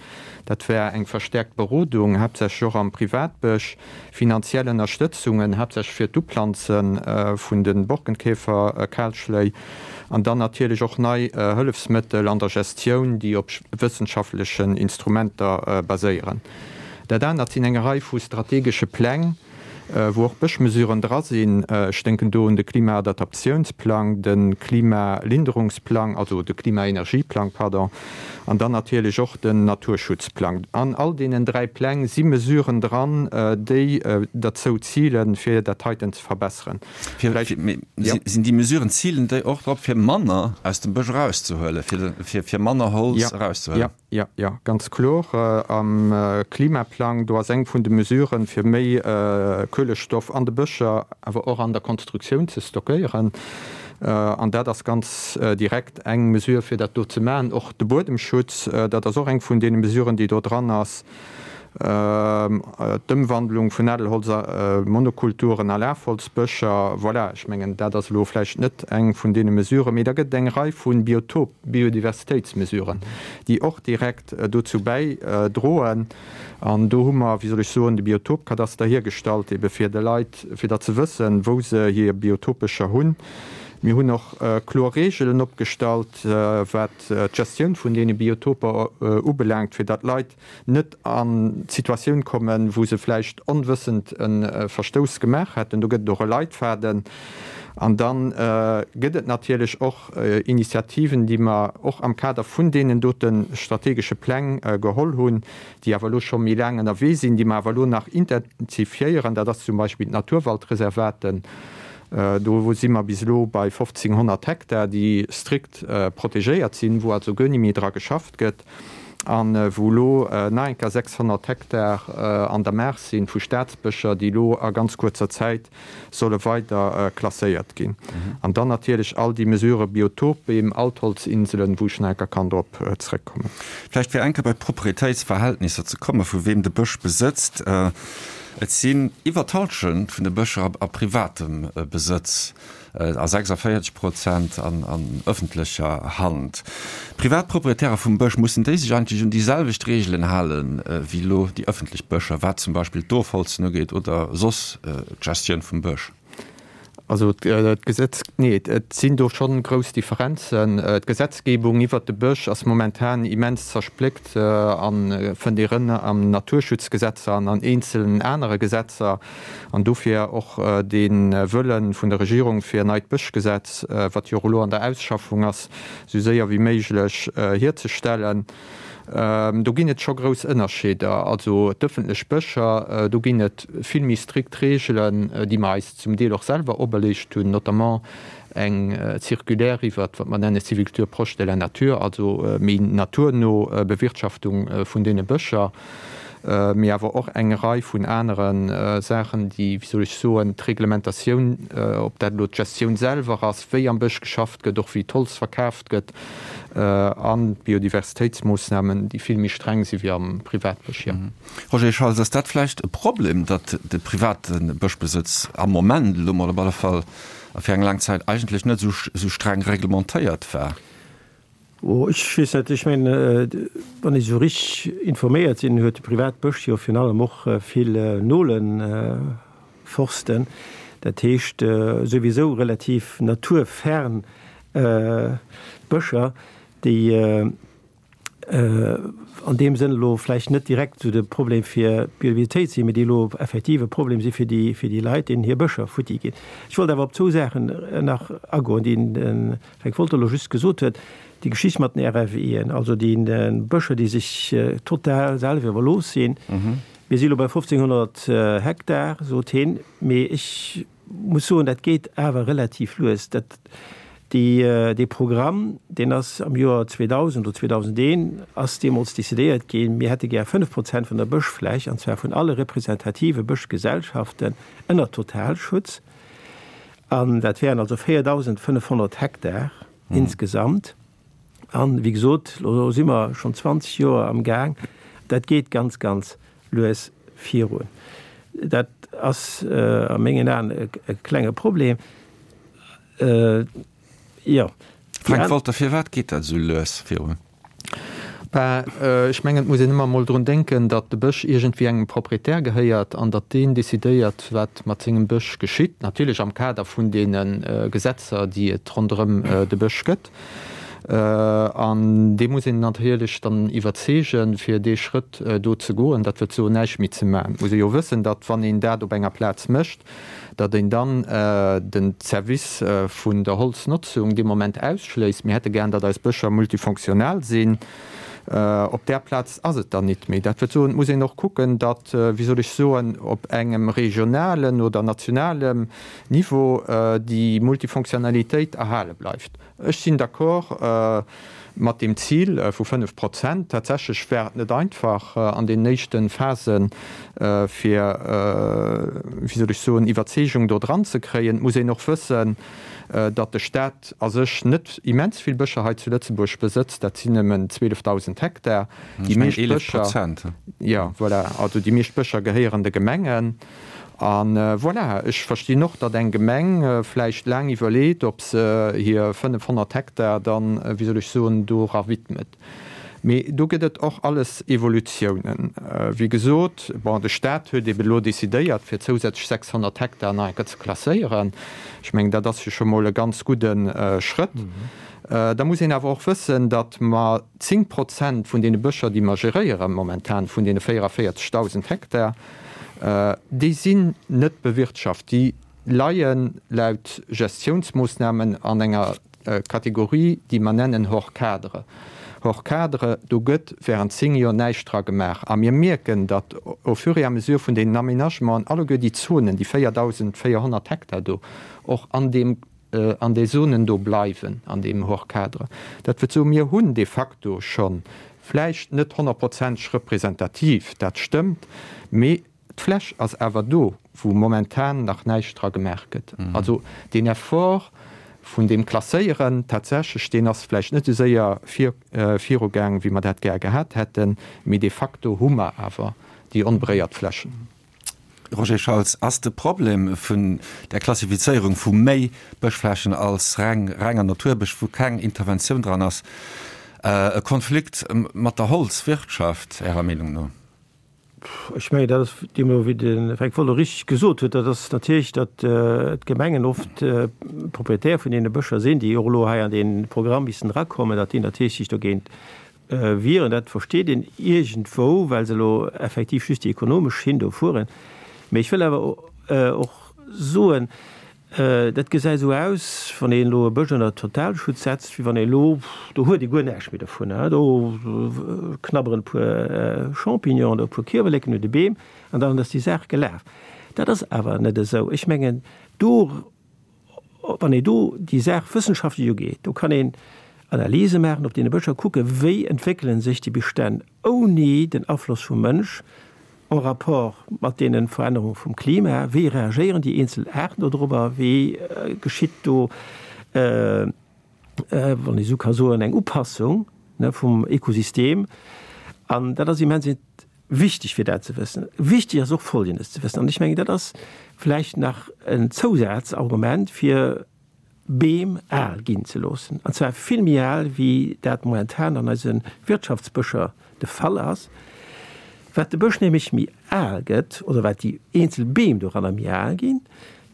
Dat war eng verstäerkt Berodung, haaptsächlech och am Privatbësch, finanziell Ënnerstëtzungen, haaptsächlech fir d'Uplanze vun de Borkenkäferkalschléi, an dann natierlech och nei Hëllefsmëttel an der Gestioun, déi op wëssenschaftlechen Instrumenter baséieren. Dat anert sinn eng Rei vu strategesche Pläng, wou och Bëschmesuren dra sinn. Ech denken do un de Klimaadaptiounsplang, de Klimalinderungsplang, also de Klimaenergieplang, pardon, an dann natierlech och den Naturschutzplang. An all deenen dräi Pläng si Mesuren dran, déi derzou zilen, fir dat heiten ze verbesseren.
Sinn déi Mesuren, zilen déi och drop, fir manner aus dem Bësch erauszehuelen, fir manner Holz erauszehuelen?
Jo, jo, ganz kloer. Am Klimaplang, do ass eng vun de Mesuren, fir méi Kuelestoff an de Bëscher, awer och an der Konstruktioun ze stockéieren. An dat ass ganz direkt eng Mesure, fir dat do ze maachen. Och de Buedemschutz, dat ass och eng vun deene Mesuren, déi do dran ass. D'Ëmwandlung vun Nadelholz a Monokulturen a Lafholzbëscher, voilà, ech mengen, dat ass elo vläicht net eng vun deene Mesuren, mee da gëtt et eng Rei vu Biotop-, Biodiversitéitsmesuren, déi och direkt dozou bäidroen. An do hu mer, wéi soll ech soen, de Biotopkadaster hiergestallt, ebe fir de Leit, fir datt se wëssen, wou se hir Biotopbëscher hunn. Mir hunn och kloer Reegelen opgestallt, wat d'Gestioun vun deene Biotoper ubelaangt, fir datt d'Leit net an d'Situatioun kommen, wou se vläicht onwëssend e Verstouss gemaach hätten. Do gëtt et och e Leitfaden. An da gëtt et natierlech och Initiativen, déi mer och am Kader vun deenen dote strategesche Pläng geholl hunn, déi awer elo scho méi laang ënnerwee sinn, déi mer awer elo nach intensifiéieren. Dat ass zum Beispill d'Naturwaldreservaten. Do si mer bis elo bei 1.500 Hektar, déi strikt protegéiert sinn, wou also guer ni méi dra geschafft gëtt. an wou elo nach eng Kéier 600 Hektar an der Maach sinn vu Staatsbëscher, déi elo a ganz kuerzer Zäit solle weider klasséiert ginn. An dann natierlech all déi Mesurë Biotopbeem, Altholzinselen, wou ech nach eng Kéier kann drop zrëckkommen.
Vläicht fir eng Kéier bei d'Proprietéitsverhältnisser ze kommen, vu weem de Bësch besëtzt. Et sinn iwwer d'Hallschent vun de Bëscher a privatem Besëtz. A 46 Prozent an ëffentlecher Hand. Privat Proprietäre vum Bësch, mussen déi sech eigentlech un déi selwecht Reegelen hale wéi elo déi ëffentlech Bëscher, wat zum Beispill d'Ofholzen ugeet oder soss d'Gestioun vum Bësch?
Also d'Gesetz, nee, et sinn do schonn grouss Differenzen. D'Gesetzgebung iwwert de Bësch ass momentan immens zerspléckt a fënnt ee rëm am Naturschutzgesetzer an an eenzelen anere Gesetzer. An dofir och dee Wëlle vun der Regierung, fir en neit Bëschgesetz, wat jo och elo an der Ausschaffung ass, esou séier wéi méiglech hierzestellen. Do ginn et scho grouss Ënnerscheeder. Also d'ëffentlech Bëscher, do ginn et vill méi strikt Reegelen, déi mer eis zum Deel och selwer operleegt hunn, notamment eng Circulaire iwwert wat mer nenne Sylviculture proche de la nature, also méi naturno Bewirtschaftung vun deene Bëscher. mee awer och eng Rei vun anere Saachen, déi, wéi soll ech soen, d'Reglementatioun, ob dat elo d'Gestioun selwer ass, wéi am Bësch geschafft gëtt, och wéi d'Holz verkaaft gëtt, an d'Biodiversitéitsmoossnamen, déi vill méi streng si wéi am Privatbësch, jo.
Roger Schauls, ass dat vläicht e Problem, datt de private Bëschbesëtz am Moment elo mol op alle Fall a fir eng laang Zäit eigentlech net esou streng reglementéiert war?
Oh, ech weess net. Ech mengen, wann ech esou richteg informéiert sinn, huet de Privatbësch jo virun allem och vill Nolenforsten, dat heescht souwisou relativ naturfern Bëscher, déi an deem Sënn elo vläicht net direkt esou de Problem fir d'Biodiversitéit sinn, mee déi elo effektiv e Problem si fir déi, fir déi Leit, deenen hir Bëscher futti ginn. Ech wollt awer op zwou Saachen nach agoen, déi den Fränk Wolter elo just gesot huet, déi Geschicht mat den RFEen, also déi Bëscher, déi sech total selwer iwwerlooss sinn. Mir si elo bei 1.500 Hektar, sot hien, mee ech muss soen, dat geet awer relativ lues. Dat. Déi, dee Programm, deen ass am Joer 2000 oder 2001 ass deemools decidéiert ginn, mir hätte gär 5 Prozent vun der Bëschfläch, an zwar vun alle representative Bëschgesellschaften, ënner Totalschutz. An dat wären also 4.500 Hektar insgesamt. An, wéi gesot, elo si mer schonn 20 Joer am Gaang. Dat geet ganz, ganz lues virun. Dat ass a mengen Aen e klenge Problem. Jo.
Frank Wolter, Firwat geet dat esou lues virun?
Ben, ech mengen, et muss een ëmmer emol drun denken, datt de Bësch iergendwéi engem Proprietär gehéiert an datt deen decidéiert, wat mat sengem Bësch geschitt, natierlech am Kader vun deene Gesetzer, déi et ronderëm de Bësch gëtt. An dee muss een natierlech dann iwwerzeegen, fir dee Schrëtt do ze goen, dat wëllt soen, näischt méi ze maachen. Et muss ee jo wëssen, datt wann een dat op enger Plaz mécht, datt een dann den Service vun der Holznotzung dee Moment ausschléisst. Mir hätte gären, datt eis Bëscher multifonctionnel sinn. Op där Plaz ass et dann nit méi. Dat wëllt soen, et muss een och kucken, datt, wéi soll ech soen, op engem regionalen oder nationalem Niveau déi Multifonctionnalitéit erhale bleift. Ech sinn d'accord mat deem Zil vu 5 Prozent. Tatsächlech war et net einfach an deenen éischte Phasen, fir, wéi soll ech soen, Iwwerzeegung do dran ze kréien. Et muss een och wëssen, datt de Stat a sech net immens vill Bëscher hei zu Lëtzebuerg besëtzt. Dat sinn nëmmen 12.000 Hektar. Déi meescht Bëscher, jo, voilà, also déi meescht Bëscher gehéieren de Gemengen. A voilà, ech verstinn och, datt eng Gemeng vläicht laang iwwerleet, ob se hir 500 Hektar dann, wéi soll ech soen, dora widmet. Mee do gëtt et och alles Evolutiounen. Wéi gesot, bon, de Stat huet ebe elo decidéiert, fir zousätzlech 600 Hektar nach eng Kéier ze klasséieren. Ech mengen, dat ass jo scho mol e ganz gudde Schrëtt. Da muss een awer och wëssen, datt mer 10 Prozent vun deene Bëscher, déi mer geréiere momentan, vun deene 44.000 Hektar, Déi sinn net bewirtschaft. Déi leie laut Gestiounsmoossnamen an enger Kategorie, déi mer nennen hors cadre. Hors cadre, do gëtt während 10 Joer näischt dra gemaach. A mir mierken, datt au fur et à mesure vun deenen Aménagementen alleguer déi Zonen, déi 4.400 Hektar do, och an deem, an déi Zonen do bleiwen, an deem hors cadre. Dat wëllt soen, mir hunn de facto schonn, vläicht net honnertprozenteg representativ, dat stëmmt, mee d'Fläch ass awer do, wou momentan nach näischt dra gemaach gëtt. Also deen Effort vun deem Klasséieren tatsächlech, deen ass vläicht net esou séier vir, virugaang, wéi mer dat gär gehat hätten, mee de facto hu mer awer déi onberéiert Flächen.
Roger Schauls, Ass de Problem vun der Klassifizéierung vu méi Bëschflächen als reng renger Naturbësch, wou keng Interventioun dran ass, e Konflikt mat der Holzwirtschaft Ärer Meenung no?
Ech mengen, dat ass deemno, wéi de Fränk Wolter richteg gesot huet, dat ass natierlech, datt d'Gemengen oft Propriétaire vun deene Bëscher sinn, déi och elo hei an dee Programm missten erakommen, datt déi natierlech sech dogéint Wieren. Dat versteet een iergendwou, well se elo effektiv just déi ekonomesch Schinn do fueren. Mee ech wëll awer och soen, dat gesäit esou aus, wann een elo e Bësch ënner Totalschutz setzt, wéi wann een elo, do huet ee guer näischt méi dovun, do knabberen e puer Champignonen oder e puer Kierwerleken un de Beem an dann ass déi Saach gelaf. Dat ass awer net esou. Ech mengen, do Wann een do déi Saach wëssenschaftlech ugeet, do kann een Analyse maachen op deene Bëscher, kucke wéi entwéckele sech déi Bestänn ouni den Afloss vum Mënsch en rapport mat deene Verännerunge vum Klima, wéi reagéieren déi eenzel Aarten dodrobber, wéi geschitt do, wann ee sou ka soen, eng Upassung vum Ökosystem. An dat ass immens Wichteg fir dat ze wëssen. Wichteg ass och Folgendes ze wëssen, an ech mengen, dat ass vläicht nach en Zousazargument fir Beem al ginn ze loossen, an zwar vill méi al wéi dat momentan an eise Wirtschaftsbëscher de Fall ass. Wat de Bësch nämlech méi al gëtt, oder wat déi eenzel Beem doranner méi al ginn,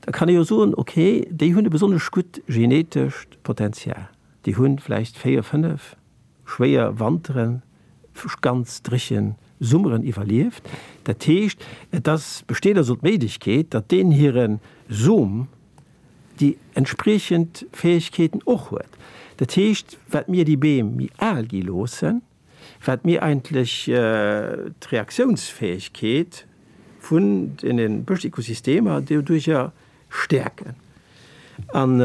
da kann ee jo soen, okay, déi hunn e besonnesch gutt genetescht Potenzial, déi hu vläicht véier, fënnef, schwéier Wanteren, ganz dréche Summeren iwwerlieft. Dat heescht, et ass, besteet also d'Méiglechkeet, datt deen hire Som déi entspriechend Fäegkeeten och huet. Dat heescht, wat mir déi Beem méi al gi loossen, wat mir eigentlech d'Reaktiounsfäegkeet vun deene Bëschökosystemer doduerjer stäerken. An.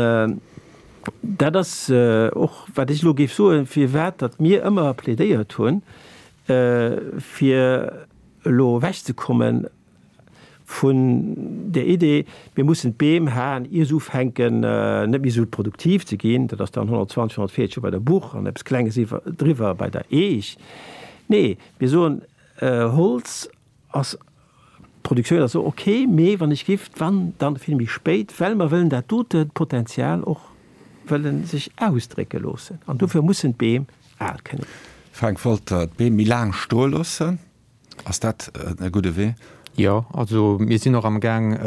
Dat ass och, wat ech elo géif soen, firwat datt mir ëmmer plädéiert hunn, fir elo ewechzekomme vun där Idee, mir mussen d'Beem haen, ier se ufänken net méi esou produktiv ze ginn, dat ass dann 120, 140 Joer bei der Buch an eppes Klenges iwwer driwwer bei der Eech. Nee, mir soen, Holz ass d'Produktioun ass och ok, mee wann ech giff, wann, dann vill méi spéit, well mer wëllen dat dote Potenzial och wëllen sech ausdrécke loossen an dofir mussen d'Beem al kënne ginn.
Frank Wolter, D'Beem méi laang stoe loossen, ass dat e gudde Wee?
Jo, also mir sinn och am Gaang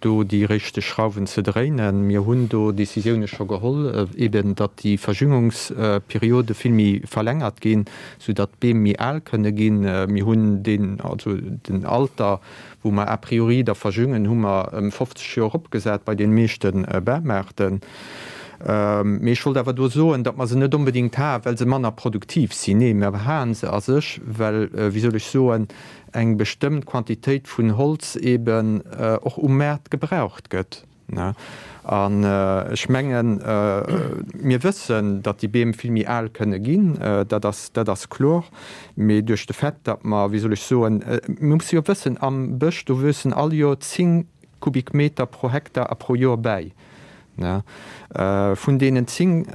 do déi richteg Schrauwen ze dréinen. Mir hunn do Décisioune scho geholl, eben datt déi Verjüngungsperiode vill méi verlängert ginn, sou datt d'Beem méi al kënne ginn. Mir hunn deen, also den Alter, wou mer a priori da verjüngen, hu mer ëm 50 Joer eropgesat bei deene meeschte Bamaarten. Mee ech wollt awer do soen, datt mer se net onbedéngt haen, well se manner produktiv sinn. Nee, mer haen se a sech, well, wéi soll ech soen, eng bestëmmt Quantitéit vun Holz eeben och um Maart gebraucht gëtt. An ech mengen, mir wëssen, datt déi Beem vill méi al kënne ginn, dat ass, dat ass kloer. Mee duerch de Fait, datt mer, wéi soll ech soen, mir musse jo wëssen, am Bësch, do wuessen all Joer 10 Kubikmeter pro Hektar a pro Joer bäi. Vun deenen 10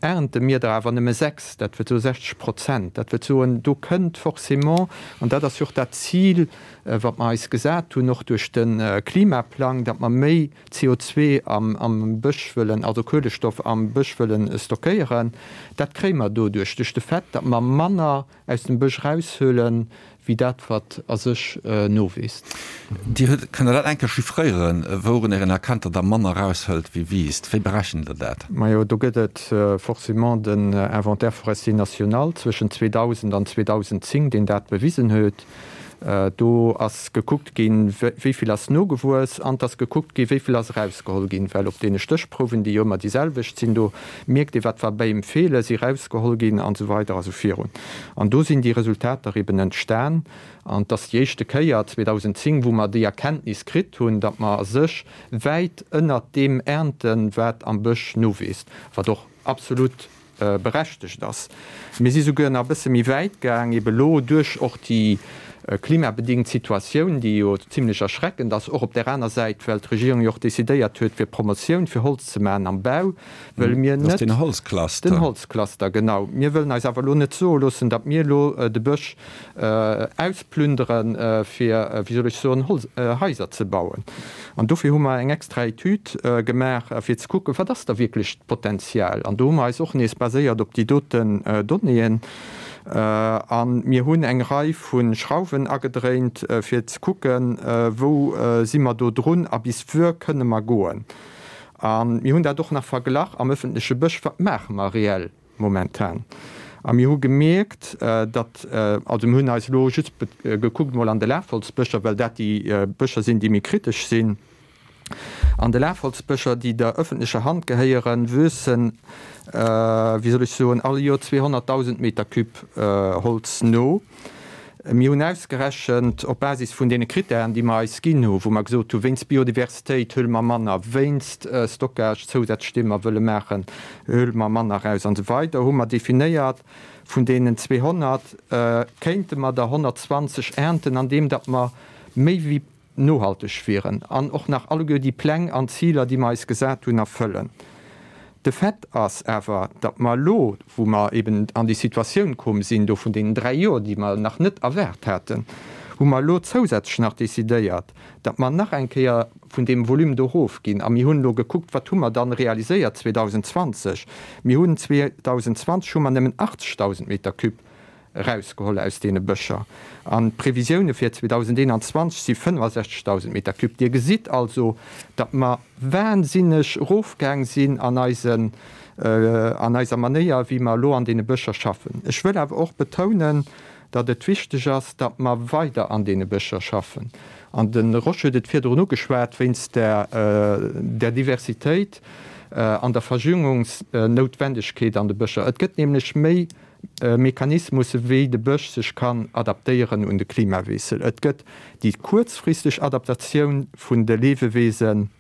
ernte mir der awer nëmme 6, dat wëllt soe 60 Prozent. Dat wëllt soen, do kënnt forcément, an dat ass jo och dat Zil, wat mer eis gesat hunn, och duerch de Klimaplang, datt mer méi CO2 am Bësch wëllen, also Kuelestoff am Bësch wëllen stockéieren, dat kréie mer doduerch, duerch de Fait, datt mer manner aus dem Bësch eraushuelen, wéi dat, wat a sech nowiisst.
Dir hutt, kënnt Der dat eng Kéier chiffréieren, wourunner een erkennt, datt Der manner eraushëlt wéi wiisst? Wéi berechent Der dat?
Majo, do gëtt et forcément den Inventaire forestier national zwëschen 2000 an 2010, deen dat bewisen huet. Do ass gekuckt ginn, wéi vill ass nogewuess, an et ass gekuckt ginn, wéi vill ass erausgeholl ginn. Well op deene Stéchprouwen, déi jo ëmmer déi selwecht sinn, do mierkt ee wat war Béim feelen, si erausgeholl ginn an esou weider a sou virun. An do sinn déi Resultater eben entstan. An et ass déi éischte Kéier, 2010, wou mer déi Erkenntnis kritt hunn, datt mer a sech wäit ënnert deem ernten, wat am Bësch nowiisst, wat och absolut berechtegt ass. Mir si souguer nach e bësse méi wäit gaang, ebe lo duerch och déi klimabedingt Situatioun, déi jo zimlech erschreckend ass, och op där aner Säit, well d'Regierung jo och decidéiert huet, fir Promotioun fir Holz ze maachen am Bau, wëlle mir net.
Dat ass den Holzcluster.
Den Holzcluster, genau. Mir wëllen eis awer elo net soe loossen, datt mir elo de Bësch ausplünderen, fir, wéi soll ech soen, Holz, Haiser ze bauen. An dofir hu mer eng extra Etüd gemaach, fir ze kucken, wat ass da wierklech d'Potenzial. An do hu mer eis och nees baséiert op déi doten Donnéeën. A mir hunn eng Rei vu Schrauwen agedréint, fir ze kucken, wou si mer do drun a bis wuer kënne mer goen. A mir hunn dat och nach verglach am öffentleche Bësch, wat maache mer reell Momentan. A mir hu gemierkt, datt, also mir hunn eis elo just gekuckt emol an de Lafholzbëscher, well dat déi Bëscher sinn, déi méi kritesch sinn. An de Lafholzbëscher, déi der ëffentlecher Hand gehéieren, wuessen, wéi soll ech soen, all Joer 200.000 Meter Cube Holz no. Mir hunn ausgerechent, op Basis vun deene Krittären, déi mer eis ginn hu, wou mer gesot hu wéinst Biodiversitéit huele mer manner, wéinst Stockage zousätzlech, dee mer wëlle maachen, huele mer manner eraus an esou weider, hu mer definéiert, vun deenen 200 kéinte mer der 120 ernten, andeem datt mer méi wéi nohalteg wieren an och nach alleguer déi Pläng an Ziler, déi mer eis gesat hunn, erfëllen. De Fait ass awer, datt mer elo, wou mer eben an déi Situatioun koom sinn do vun deenen dräi Joer, déi mer nach net erwaart haten, hu mer elo zousätzlech nach decidéiert, datt mer nach eng Kéier vun deem Volume do erofginn. A mir hunn elo gekuckt, wat hu mer dann realiséiert 2020. Mir hunn 2020 hu mer nëmmen 80.000 Meter cube erausgeholl aus deene Bëscher. An d'Previsioune fir 2021 si 65.000 Meter cube. Dir gesitt also, datt mer wahnsinneg erofgaang sinn an eisen, an eiser Manéier, wéi mer elo an deene Bëscher schaffen. Ech wëll awer och betounen, datt et wichteg ass, datt mer weider an deene Bëscher schaffen. An de Rosch huet et virdrun ugeschwat, wéinst der, der Diversitéit an der Verjüngungsnoutwendegkeet an de Bëscher. Et gëtt nämlech méi Mechanismusse wéi de Bësch sech kann adaptéieren un de Klimawiessel. Et gëtt déi kuerzfristeg Adaptatioun vun de Leewewesen.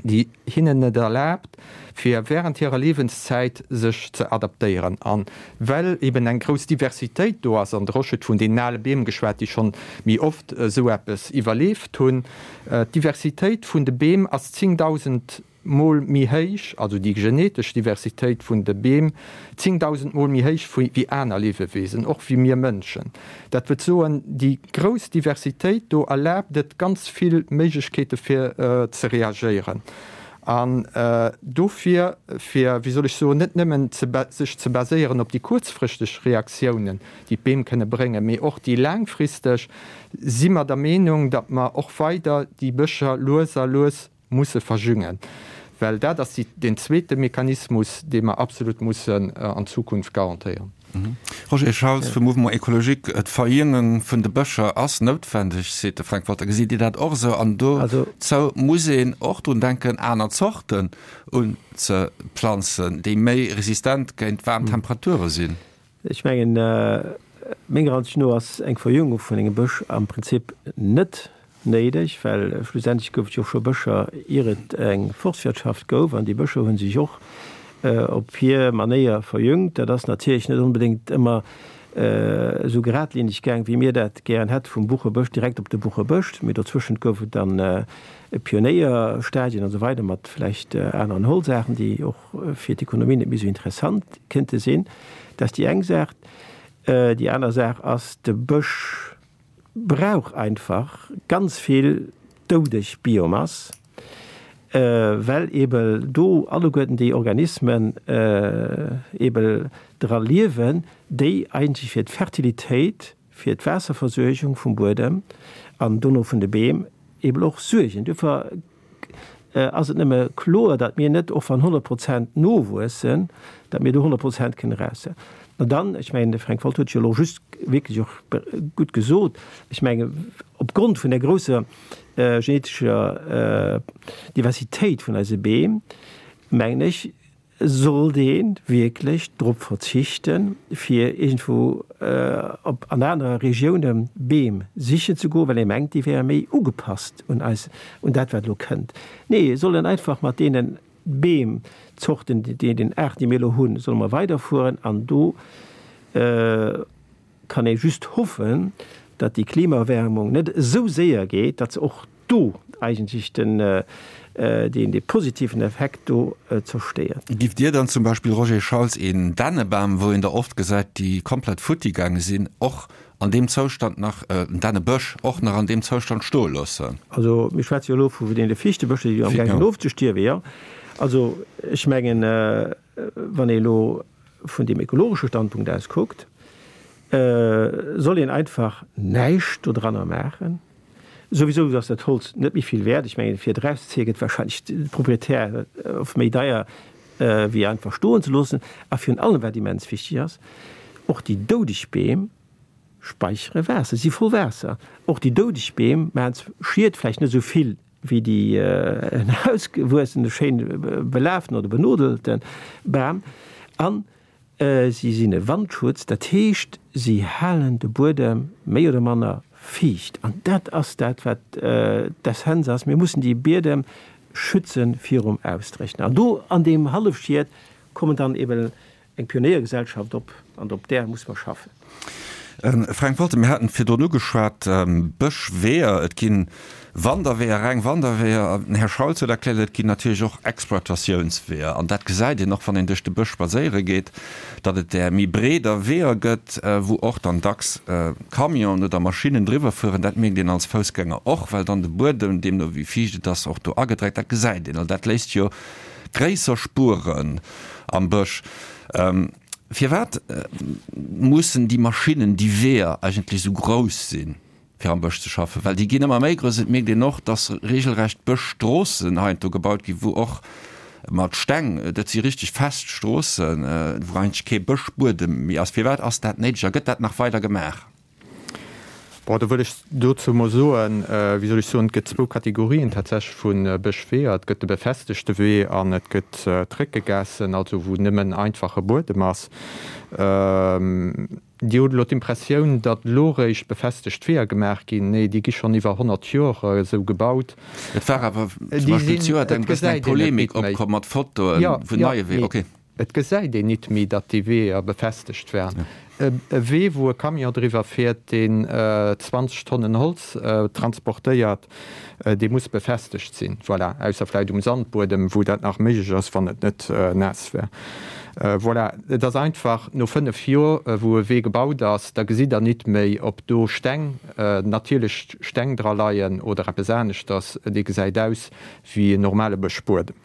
déi hinnen et erlaabt, fir während hirer Liewenszäit sech ze adaptéieren. A well eben eng grouss Diversitéit do ass, an de Rosch huet vun deenen ale Beem geschwat, déi schonn méi oft esou eppes iwwerleeft hunn, d'Diversitéit vun de Beem ass 10.000 Mol méi héich, also déi genetesch Diversitéit vun de Beem 10.000 Mol méi héich wéi aner Liewewesen, och wéi mir Mënschen. Dat wëllt soen, déi grouss Diversitéit do erlaabt et ganz vill Méiglechkeete fir ze reagéieren. An dofir, fir, wéi soll ech soen, net nëmmen sech ze baséieren op déi kuerzfristeg Reaktiounen, déi d'Beem kënne bréngen, mee och déi laangfristeg, si mer der Meenung, datt mer och weider déi Bëscher lues a lues musse verjüngen, well dat ass deen zweete Mechanismus, dee mer absolut mussen an Zukunft garantéieren.
Roger Schauls vum Mouvement Ecologique, D'Verjüngung vun de Bëscher ass noutwendeg, seet de Frank Wolter. Gesitt Dir dat och esou? An dozou muss een och drun denken, aner Zorten unzeplanzen, déi méi resistent géint waarm Temperature sinn.
Ech mengen, menger Ansicht no ass eng Verjüngung vun engem Bësch am Prinzip net néideg, well schlussendlech gouf et jo och scho Bëscher, ier et eng Forstwirtschaft gouf, an déi Bëscher hu sech och op hir Manéier verjüngt. Dat ass natierlech net onbedéngt ëmmer esou geradlineg gaang, wéi mir dat gären hätte, vum Buchebësch direkt op de Buchebësch, mee dozwëschent gouf et dann Pionéierstadien an esou weider mat vläicht aneren Holzaarten, déi och fir d'Ekonomie net méi esou interessant kënnte sinn. Dat ass déi eng Saach. Déi aner Saach ass, de Bësch brauch einfach ganz vill doudeg Biomass, well eebe do alleguerten déi Organismen eebe dra liewen, déi eigentlech fir d'Fertilitéit, fir d'Waasserversuergung vum Buedem an dono vun de Beem eeben och suergen. Duerfir ass et nëmme kloer, datt mir net, och wann 100 Prozent nowuessen, datt mir do 100 Prozent kënnen eraussetzen. An dann, ech mengen, de Fränk Wolter huet et jo elo just wierklech och gutt gesot, ech mengen, opgrond vun der grousser genetescher Diversitéit vun eise Beem, mengen ech, Sollt ee wierklech drop verzichten, fir iergendwou op an anere Regioune Beem sichen ze goen, well ee mengt, déi wäre méi ugepasst un eis, un dat, wat elo kënnt? Nee, et soll een einfach mat deene Beemzorten, deenen Aarten, déi mir elo hunn, solle mer weiderfueren an do kann ee just hoffen, datt déi Klimaerwärmung net esou séier geet, datt se och do eigentlech den, deen dee positiven Effekt do zerstéiert.
Giff Dir dann zum Beispill, Roger Schauls, een Dännebam, wou een der oft gesäit, déi komplett futti gaange sinn, och an deem Zoustand nach, en Dännebësch och nach an deem Zoustand stoe loossen?
Also mir schwätze jo elo vu deene Fichtebëscher, déi jo amgaang sinn ofzestierwen, jo. Also ech mengen, wann ee elo vun deem ekologesche Standpunkt aus kuckt, soll een einfach näischt dodranner maachen. Souwisou ass dat Holz net méi vill wäert. Ech mengen, fir et erauszezéie gëtt wahrscheinlech de Proprietär oft méi deier, wéi einfach stoen ze loossen. A virun allem, wat immens wichteg ass, och déi doudeg Beem speichere Waasser, si voll Waasser. Och déi doudeg Beem maachen Schied, vläicht net esou vill wéi déi en ausgewuessene, schéin belaaften oder benodelte Bam. An si sinn e Wandschutz, dat heescht, si halen de Buedem méi oder manner fiicht. An dat ass dat, wat d'Essenz ass, Mir mussen déi Biedem schütze virum Ausdréchnen. An do an deem Hallefschiet kommen dann eben Eng Pionéiergesellschaft op, an op där muss mer schaffen.
Fränk Wolter, mir haten virdrun ugeschwat, Bëschweeër, et gi Wanderweeër, reng Wanderweeër, den Här Schauls huet erkläert, et ginn natierlech och Exploitatiounsweeër. An dat gesäit een och, wann een duerch de Bësch spadséiere geet, datt et där méi breeder Weeër gëtt, wou och dann dacks Camionen oder Maschinnen driwwer fueren. Dat mierkt een als Foussgänger och, well dann de Buedem, deemno wéi fiicht et ass, och do agedreckt. Dat gesäit een. Also dat léisst jo gréisser Spueren am Bësch. Firwat mussen déi Maschinnen, déi Weeër eigentlech esou grouss sinn, fir am Bësch ze schaffen? Well déi ginn ëmmer méi grouss. Et mierkt een och, datt regelrecht Bëschstroossen heiansdo gebaut ginn, wou och mat Steng, dat si richteg fest Stroossen, wou eigentlech kee Bëschbuedem méi ass. Firwat ass dat néideg a gëtt dat nach weider gemaach?
Bon, do wëll ech dozou emol soen, wéi soll ech soen, et gëtt zwou Kategorien tatsächlech vu Bëschweeër. Et gëtt de befestegte Wee an et gëtt d'Réckegaassen, also wou nëmmen einfache Buedem ass. Dir hutt elo d'Impressioun, datt elo réischt befestegt Weeër gemaach ginn. Nee, déi gi schonn iwwer 100 Joer esou gebaut.
Et war awer zum Beispill zejoert eng bëssen eng Polemik opkomm mat Fotoe vun neie Weeër. Okay.
Et gesäit een nit méi, datt déi Weeër befestegt waren. E Wee, wou e Camion driwwer fiert, deen 20 Tonnen Holz transportéiert, Dee muss befestegt sinn, voilà, ausser vläicht um Sandbuedem, wou dat nach méiglech ass, wann et net naass wär. Voilà, et ass einfach, no 5 Jor, wou e Wee gebaut ass, da gesitt Der nit méi, ob do Steng, natierlech Steng dra leien oder eppes aneschters. Dee gesäit aus wéi en normale Bëschbuedem.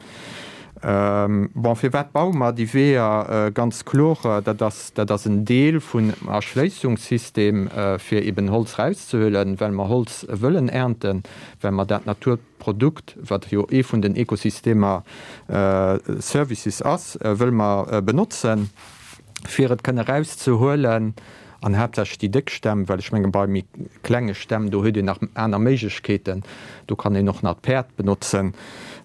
Bon, firwat baue mer déi Weeër? Ganz kloer, dat ass, dat ass en Deel vun Erschléissungssystem, fir eben Holz erauszehuelen, well mer Holz wëllen ernten, well mer dat Naturprodukt, wat jo ee vun den Ekosystemer Services ass, wëlle mer benotzen, fir et kënne erauszehuelen. An haaptsächlech déi déck Stämm, well ech menge bei méi klenge Stämm, do huet een nach aner Méiglechkeeten, do kann een och nach d'Päerd benotzen.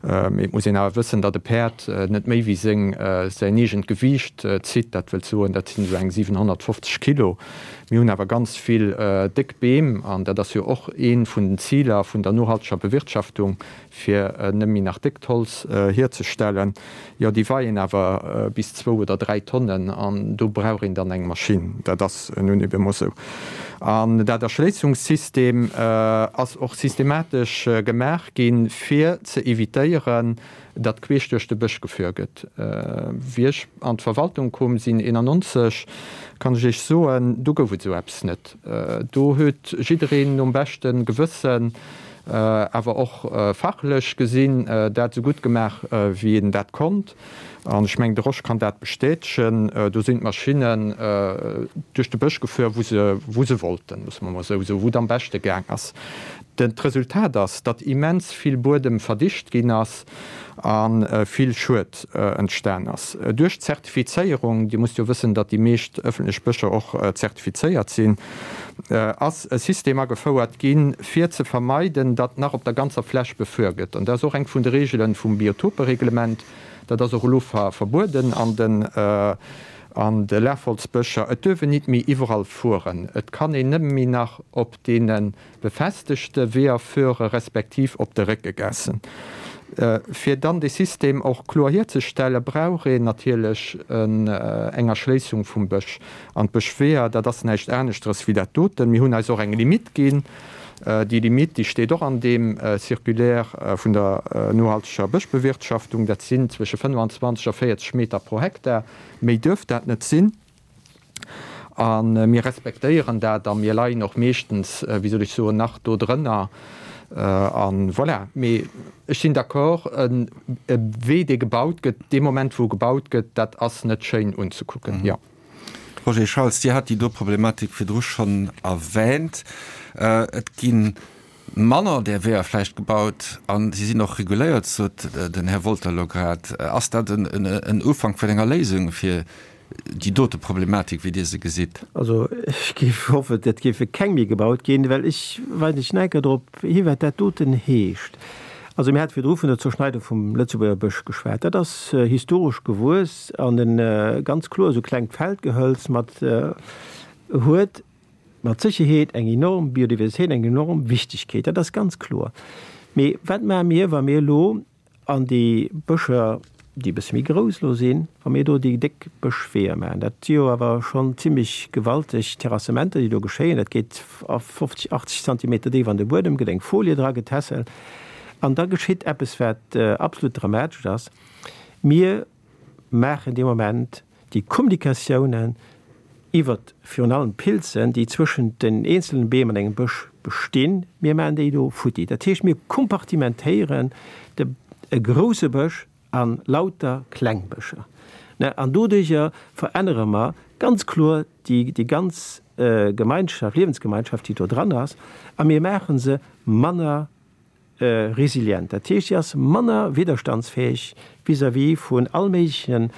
Mee et muss een awer wëssen, datt e Päerd net méi wéi seng, säin eegent Gewiicht zitt, dat wëllt soen, dat sinn esou eng 750 Kilo. Mir hunn awer ganz vill déck Beem, an dat ass jo och ee vun den Ziler vun der nohalteger Bewirtschaftung, fir net méi nach déckt Holz hierzestellen, jo déi weien awer bis zwou oder 3 Tonnen an do brauch een dann eng Maschinn. Dat ass nun ebe mol esou. An dat Erschléissungssystem ass och systematesch gemaach ginn, fir ze evitéieren, datt queesch duerch de Bësch gefuer gëtt. Wéi ech an d'Verwaltung koom sinn, 91, kann ech Iech soen, do gouf et esou eppes net. Do huet jiddereen nom beschte Gewëssen, awer och fachlech gesinn, dat esou gutt gemaach, wéi een dat konnt. An ech mengen, de Rosch kann dat bestätegen. Do sinn d'Maschinnen duerch de Bësch gefuer, wou se, wou se wollten, loosse mer emol esou soen, wou et am beschte gaang ass. D'Resultat ass, datt immens vill Buedem verdicht ginn ass a vill Schued entstan ass. Duerch d'Zertifizéierung, Dir musst jo wëssen, datt déi meescht ëffentlech Bëscher och zertifizéiert sinn, ass e System agefouert ginn, fir ze vermeiden, datt nach op der ganzer Fläch befuer gëtt. An dat ass och eng vun de Reegele vum Biotopereglement. Dat ass och elo verbueden an den an de Lafholzbëscher. Et duerf een nit méi iwwerall fueren. Et kann een nëmme méi nach op deene befestegte Weeër fuere respektiv op de Réckegaassen. Fir dann dee System och kloer hierzestellen, brauch een natierlech eng Erschléissung vum Bësch. An d'Bëschweeër, dat ass näischt aneschteres wéi dat doten. Mir hunn eis och eng Limitt ginn. Déi Limitt, déi steet och an deem Circulaire vun der nohalteger Bëschbewirtschaftung. Dat sinn zwësche 25 a 40 Meter pro Hektar. Méi duerf dat net sinn. A mir respektéieren dat a mir leien och meeschtens, wéi soll ech soen, nach do drënner. A voilà. Mee ech sinn d'accord, e Wee, dee gebaut gëtt, dee Moment, wou e gebaut gëtt, dat ass net schéin unzekucken, jo.
Roger Schauls, Dir hat déi do Problematik virdru schonn erwähnt. Et gi manner där Weeër vläicht gebaut a si sinn och reguléiert, sot den Här Wolter elo grad. Ass dat en Ufank vun enger Léisung fir déi dote Problematik, wéi Dir se gesitt?
Also ech géif hoffen, et géife keng méi gebaut ginn, well ech weisen lech nach eng Kéier drop hi wat dat doten heescht. Also mir hate virdru vun der Zerschneidung vum Lëtzebuerger Bësch geschwat. Dat ass historesch gewuess an e ganz kloer esou klengt Feldgehölz mat huet mat Sécherheet eng enorm Biodiversitéit, eng enorm Wichtigkeet, dat ass ganz kloer. Mee wat maache mir, wa mir elo an déi Bëscher, déi e bësse méi grouss elo sinn, wa mir do déi déck Bëschweeër maachen? Dat si jo awer schonn zimlech gewalteg Terrassementer, déi do geschéien. Dat geet a 50, 80 Zentimeter déif an de Buedem, gëtt eng Folie dra getässelt an da geschitt eppes, wat absolut dramatesch ass, Mir maachen dee Moment déi Kommunikatiounen iwwert virun allem d'Pilzen, déi zwëschent den eenzelnen Beem an engem Bësch bestinn, mir maachen déi do futti. Dat heescht, mir kompartimentéieren de e grouse Bësch a lauter kleng Bëscher. An doduerjer verännere mer ganz kloer déi déi ganz Gemeinschaft, Liewensgemeinschaft, déi do dran ass, a mir maache se manner resilient, dat heescht, si ass manner widderstandsfäeg vis-à-vis vun all méiglechen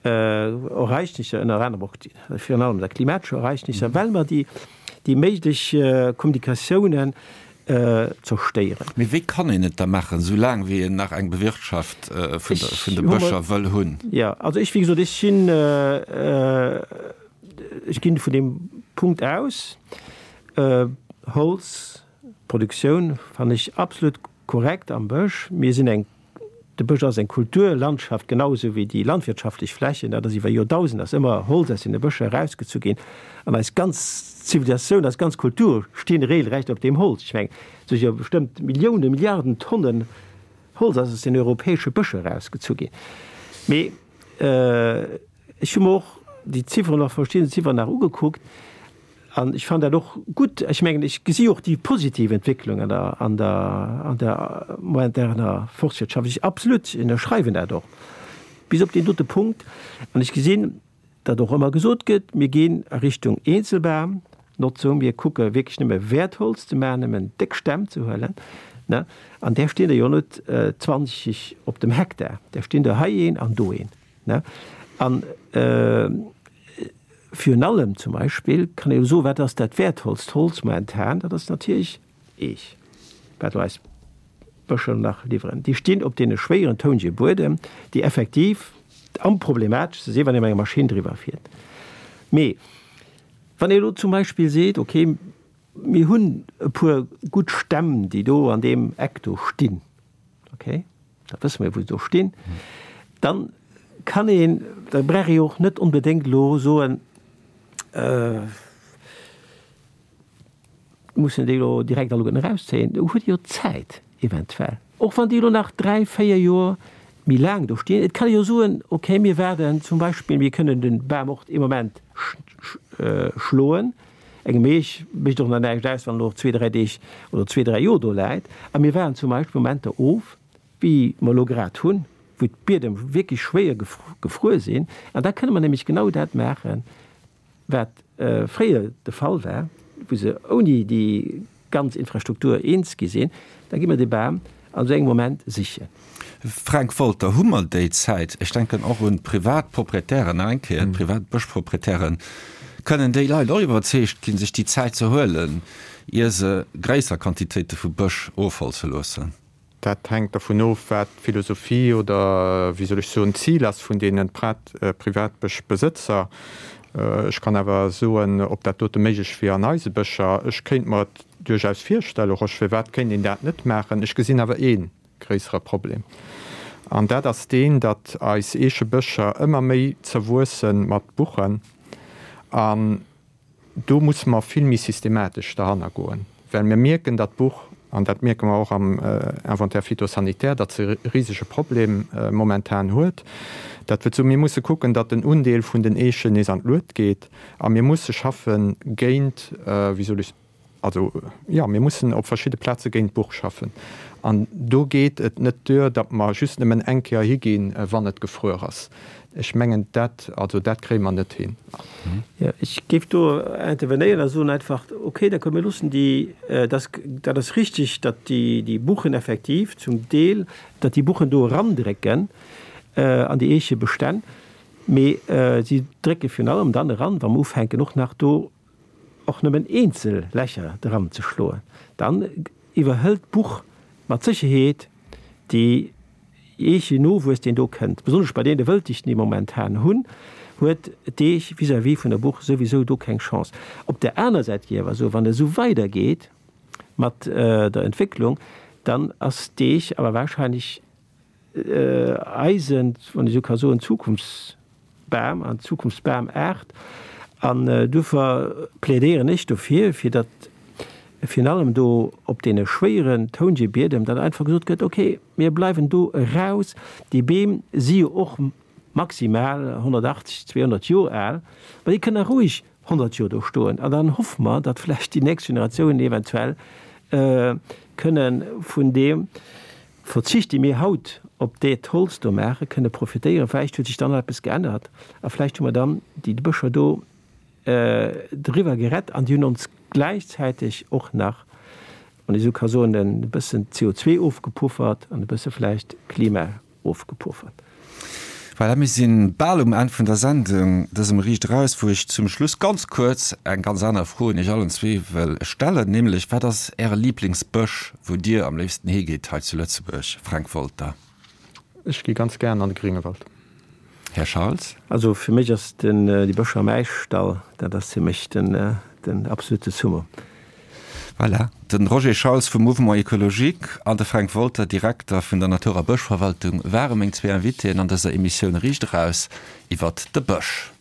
Ereignisser, ënner anerem och virun allem der klimatescher Ereignisser, well mer déi déi méiglech Kommunikatiounen zerstéieren.
Mee wéi kann een et da maachen, esou laang wéi een nach eng Bewirtschaft vun de Bëscher wëll hunn?
Jo, also ech, wéi gesot, ech sinn. ech ginn vun deem Punkt aus, Holzproduktioun fannen ech absolut korrekt am Bësch. Mir sinn eng, de Bësch ass eng Kulturlandschaft, genau esou wéi déi landwirtschaftlech Flächen. Dat ass iwwer Joerdausend ass ëmmer Holz aus deene Bëscher erausgezu ginn. An eis ganz Zivilisatioun, eis ganz Kultur stinn regelrecht op deem Holz. Ech mengen, et si jo bestëmmt Milliounen, Milliarden Tonnen Holz ass aus den europäesche Bëscher erausgezu ginn. Mee ech hu mer och déi Zifferen nach, verschidden Zifferen nach ugekuckt an ech fannen dat och gutt. Ech mengen, ech gesi och déi positiv Entwécklung an der, an der, an der moderner Forstwirtschaft. Ech absolut ënnerschreiwen dat och bis op deen dote Punkt. An ech gesinn, datt och ëmmer gesot gëtt, mir ginn a Richtung Eenzelbamnotzung, mir kucke wierklech nëmme Wäertholz ze maachen, nëmmen déck Stämm ze huelen, ne, an där stinn der jo net 20 op dem Hektar, där stinn der hei een an do een, ne. An virun allem zum Beispill kann ee jo soen, wat ass dat wäertvollst Holz momentan? Dat ass natierlech Eech, wat elo eis Bëscher nach liwweren. Déi stinn op deene schwéieren tounege Buedem, déi effektiv am problemateschste sinn, wann ee mat enger Maschinn driwwer fiert. Mee wann ee elo zum Beispill seet, okay, mir hunn e puer gutt Stämm, déi do an deem Eck do stinn, okay, da wësse mir, wou se do stinn, dann kann een, da brauch ee jo och net onbedéngt elo soen, Mussen déi elo direkt alleguerten erauszéien? Do huet ee jo Zäit eventuell, och wann déi elo nach 3, 4 Joer méi laang do stinn. Et kann ee jo soen, okay, mir waarden zum Beispill, mir kënnen de Bam och ee Moment schloen, engem Eech mécht och nach näischt aus, wann en och zwee, dräi Deeg oder zwee, dräi Joer do läit, a mir waarden zum Beispill Momenter of, wéi mer elo grad hunn, wou d'Biedem wierklech schwéier gefruer sinn, an da kënne mer nämlech genau dat maachen, wat fréier de Fall war, wou se ouni déi ganz Infrastruktur eens gi sinn, da gi mer dee Bam an esou engem Moment sichen.
Frank Wolter, Hu mer déi Zäit? Ech denken och un d'privat Proprietären, nach eng Kéier, d'privat Bëschproprietären. Kënnen déi Leit och iwwerzeegt ginn, sech déi Zäit ze huelen, ier se gréisser Quantitéite vu Bësch ofholze loossen?
Dat hänkt dervun of, wat d'Philosophie oder, wéi soll ech soen, d'Zil ass vun deene Privatbëschbesëtzer. Ech kann awer soen, ob dat dote méiglech wier an eise Bëscher. Ech kéint mer et duerchaus virstellen, Rosch, firwat kéint een dat net maachen? Ech gesinn awer ee gréissere Problem, an dat ass deen, datt eis Eechebëscher ëmmer méi zerwuesse mat Buchen. An Do musse mer vill méi systematesch derhanner goen, well mir mierken, datt d'Buch, an dat mierke mer och am Inventaire phytosanitaire, datt se e risege Problem momentan huet. Dat wëllt soen, mir musse kucken, datt den Undeel vun den Eechen nees an d'Luet geet a mir musse schaffe géint, wéi soll ech, also jo, mir mussen op verschidde Plaze géint d'Buch schaffen. An do geet et net duer, datt mer just nëmmen eng Kéier higinn, wann et gefruer ass. Ech mengen, dat, also dat kréie mer net hin.
Jo, ech géif do intervenéieren a soen einfach, okay, d'accord, mir loossen déi, dat, dat ass richtig, datt déi, déi Buchen effektiv zum Deel, datt déi Buchen do erandrécken an déi Eechebestänn, mee si drécke virun allem dann eran, wa mer ufänken och nach do och nëmmen eenzel Lächer dran ze schloen, dann iwwerhëlt d'Buch mat Sécherheet déi Eeche Nowuess, deen do kënnt. Besonnesch bei deene Wëlldichten, déi mer momentan hunn, huet d'Eech vis-à-vis vun der Buch souwisou do keng Chance. Op där aner Säit géif ech awer soen, wann et esou weidergeet mat der Entwécklung, dann ass d'Eech awer wahrscheinlech eisen, wann ech esou ka soen, Zukunftsbam an Zukunftsbamaart. An duerfir plädéieren ech dofir, fir datt virun allem do op deene schwéieren Toungebiedem dann einfach gesot gëtt, okay, mir bleiwen do eraus. Déi Beem si jo och maximal 180, 200 Joer al, ma déi kënnen roueg 100 Joer do stoen. An dann hoffe mer, datt vläicht déi nächst Generatiounen eventuell kënne vun deem Verzicht, dee mir haut op dat Holz do maachen, kënne profitéieren. Vläicht huet sech dann nach eppes geännert a vläicht hu mer dann déi Bëscher do driwwer gerett an déi hunn ons gläichzäiteg och nach, wann ee sou ka soen, e bëssen CO2 ofgepuffert an e bësse vläicht Klima ofgepuffert.
Voilà, mir si bal um Enn vun der Sendung, dësem Riicht Eraus, wou ech zum Schluss ganz kuerz eng ganz aner Fro un Iech allen zwee wëll stellen, nämlech, Wat ass Äre Liblingsbësch, wou Dir am léifsten higitt hei zu Lëtzebuerg? Fränk Wolter.
Ech gi ganz gären an de Gréngewald.
Här Schaltz?
Also fir mech ass den déi Bëscher am Äischdall, dat ass fir mech den den absolute Summum.
Voilà, de Roger Schauls vum Mouvement Ecologique an de Fränk Wolter, Direkter vun der Natur a Bëschverwaltung, ware meng zwee Invitéen an dëser Emissioun Riicht Eraus iwwert de Bësch.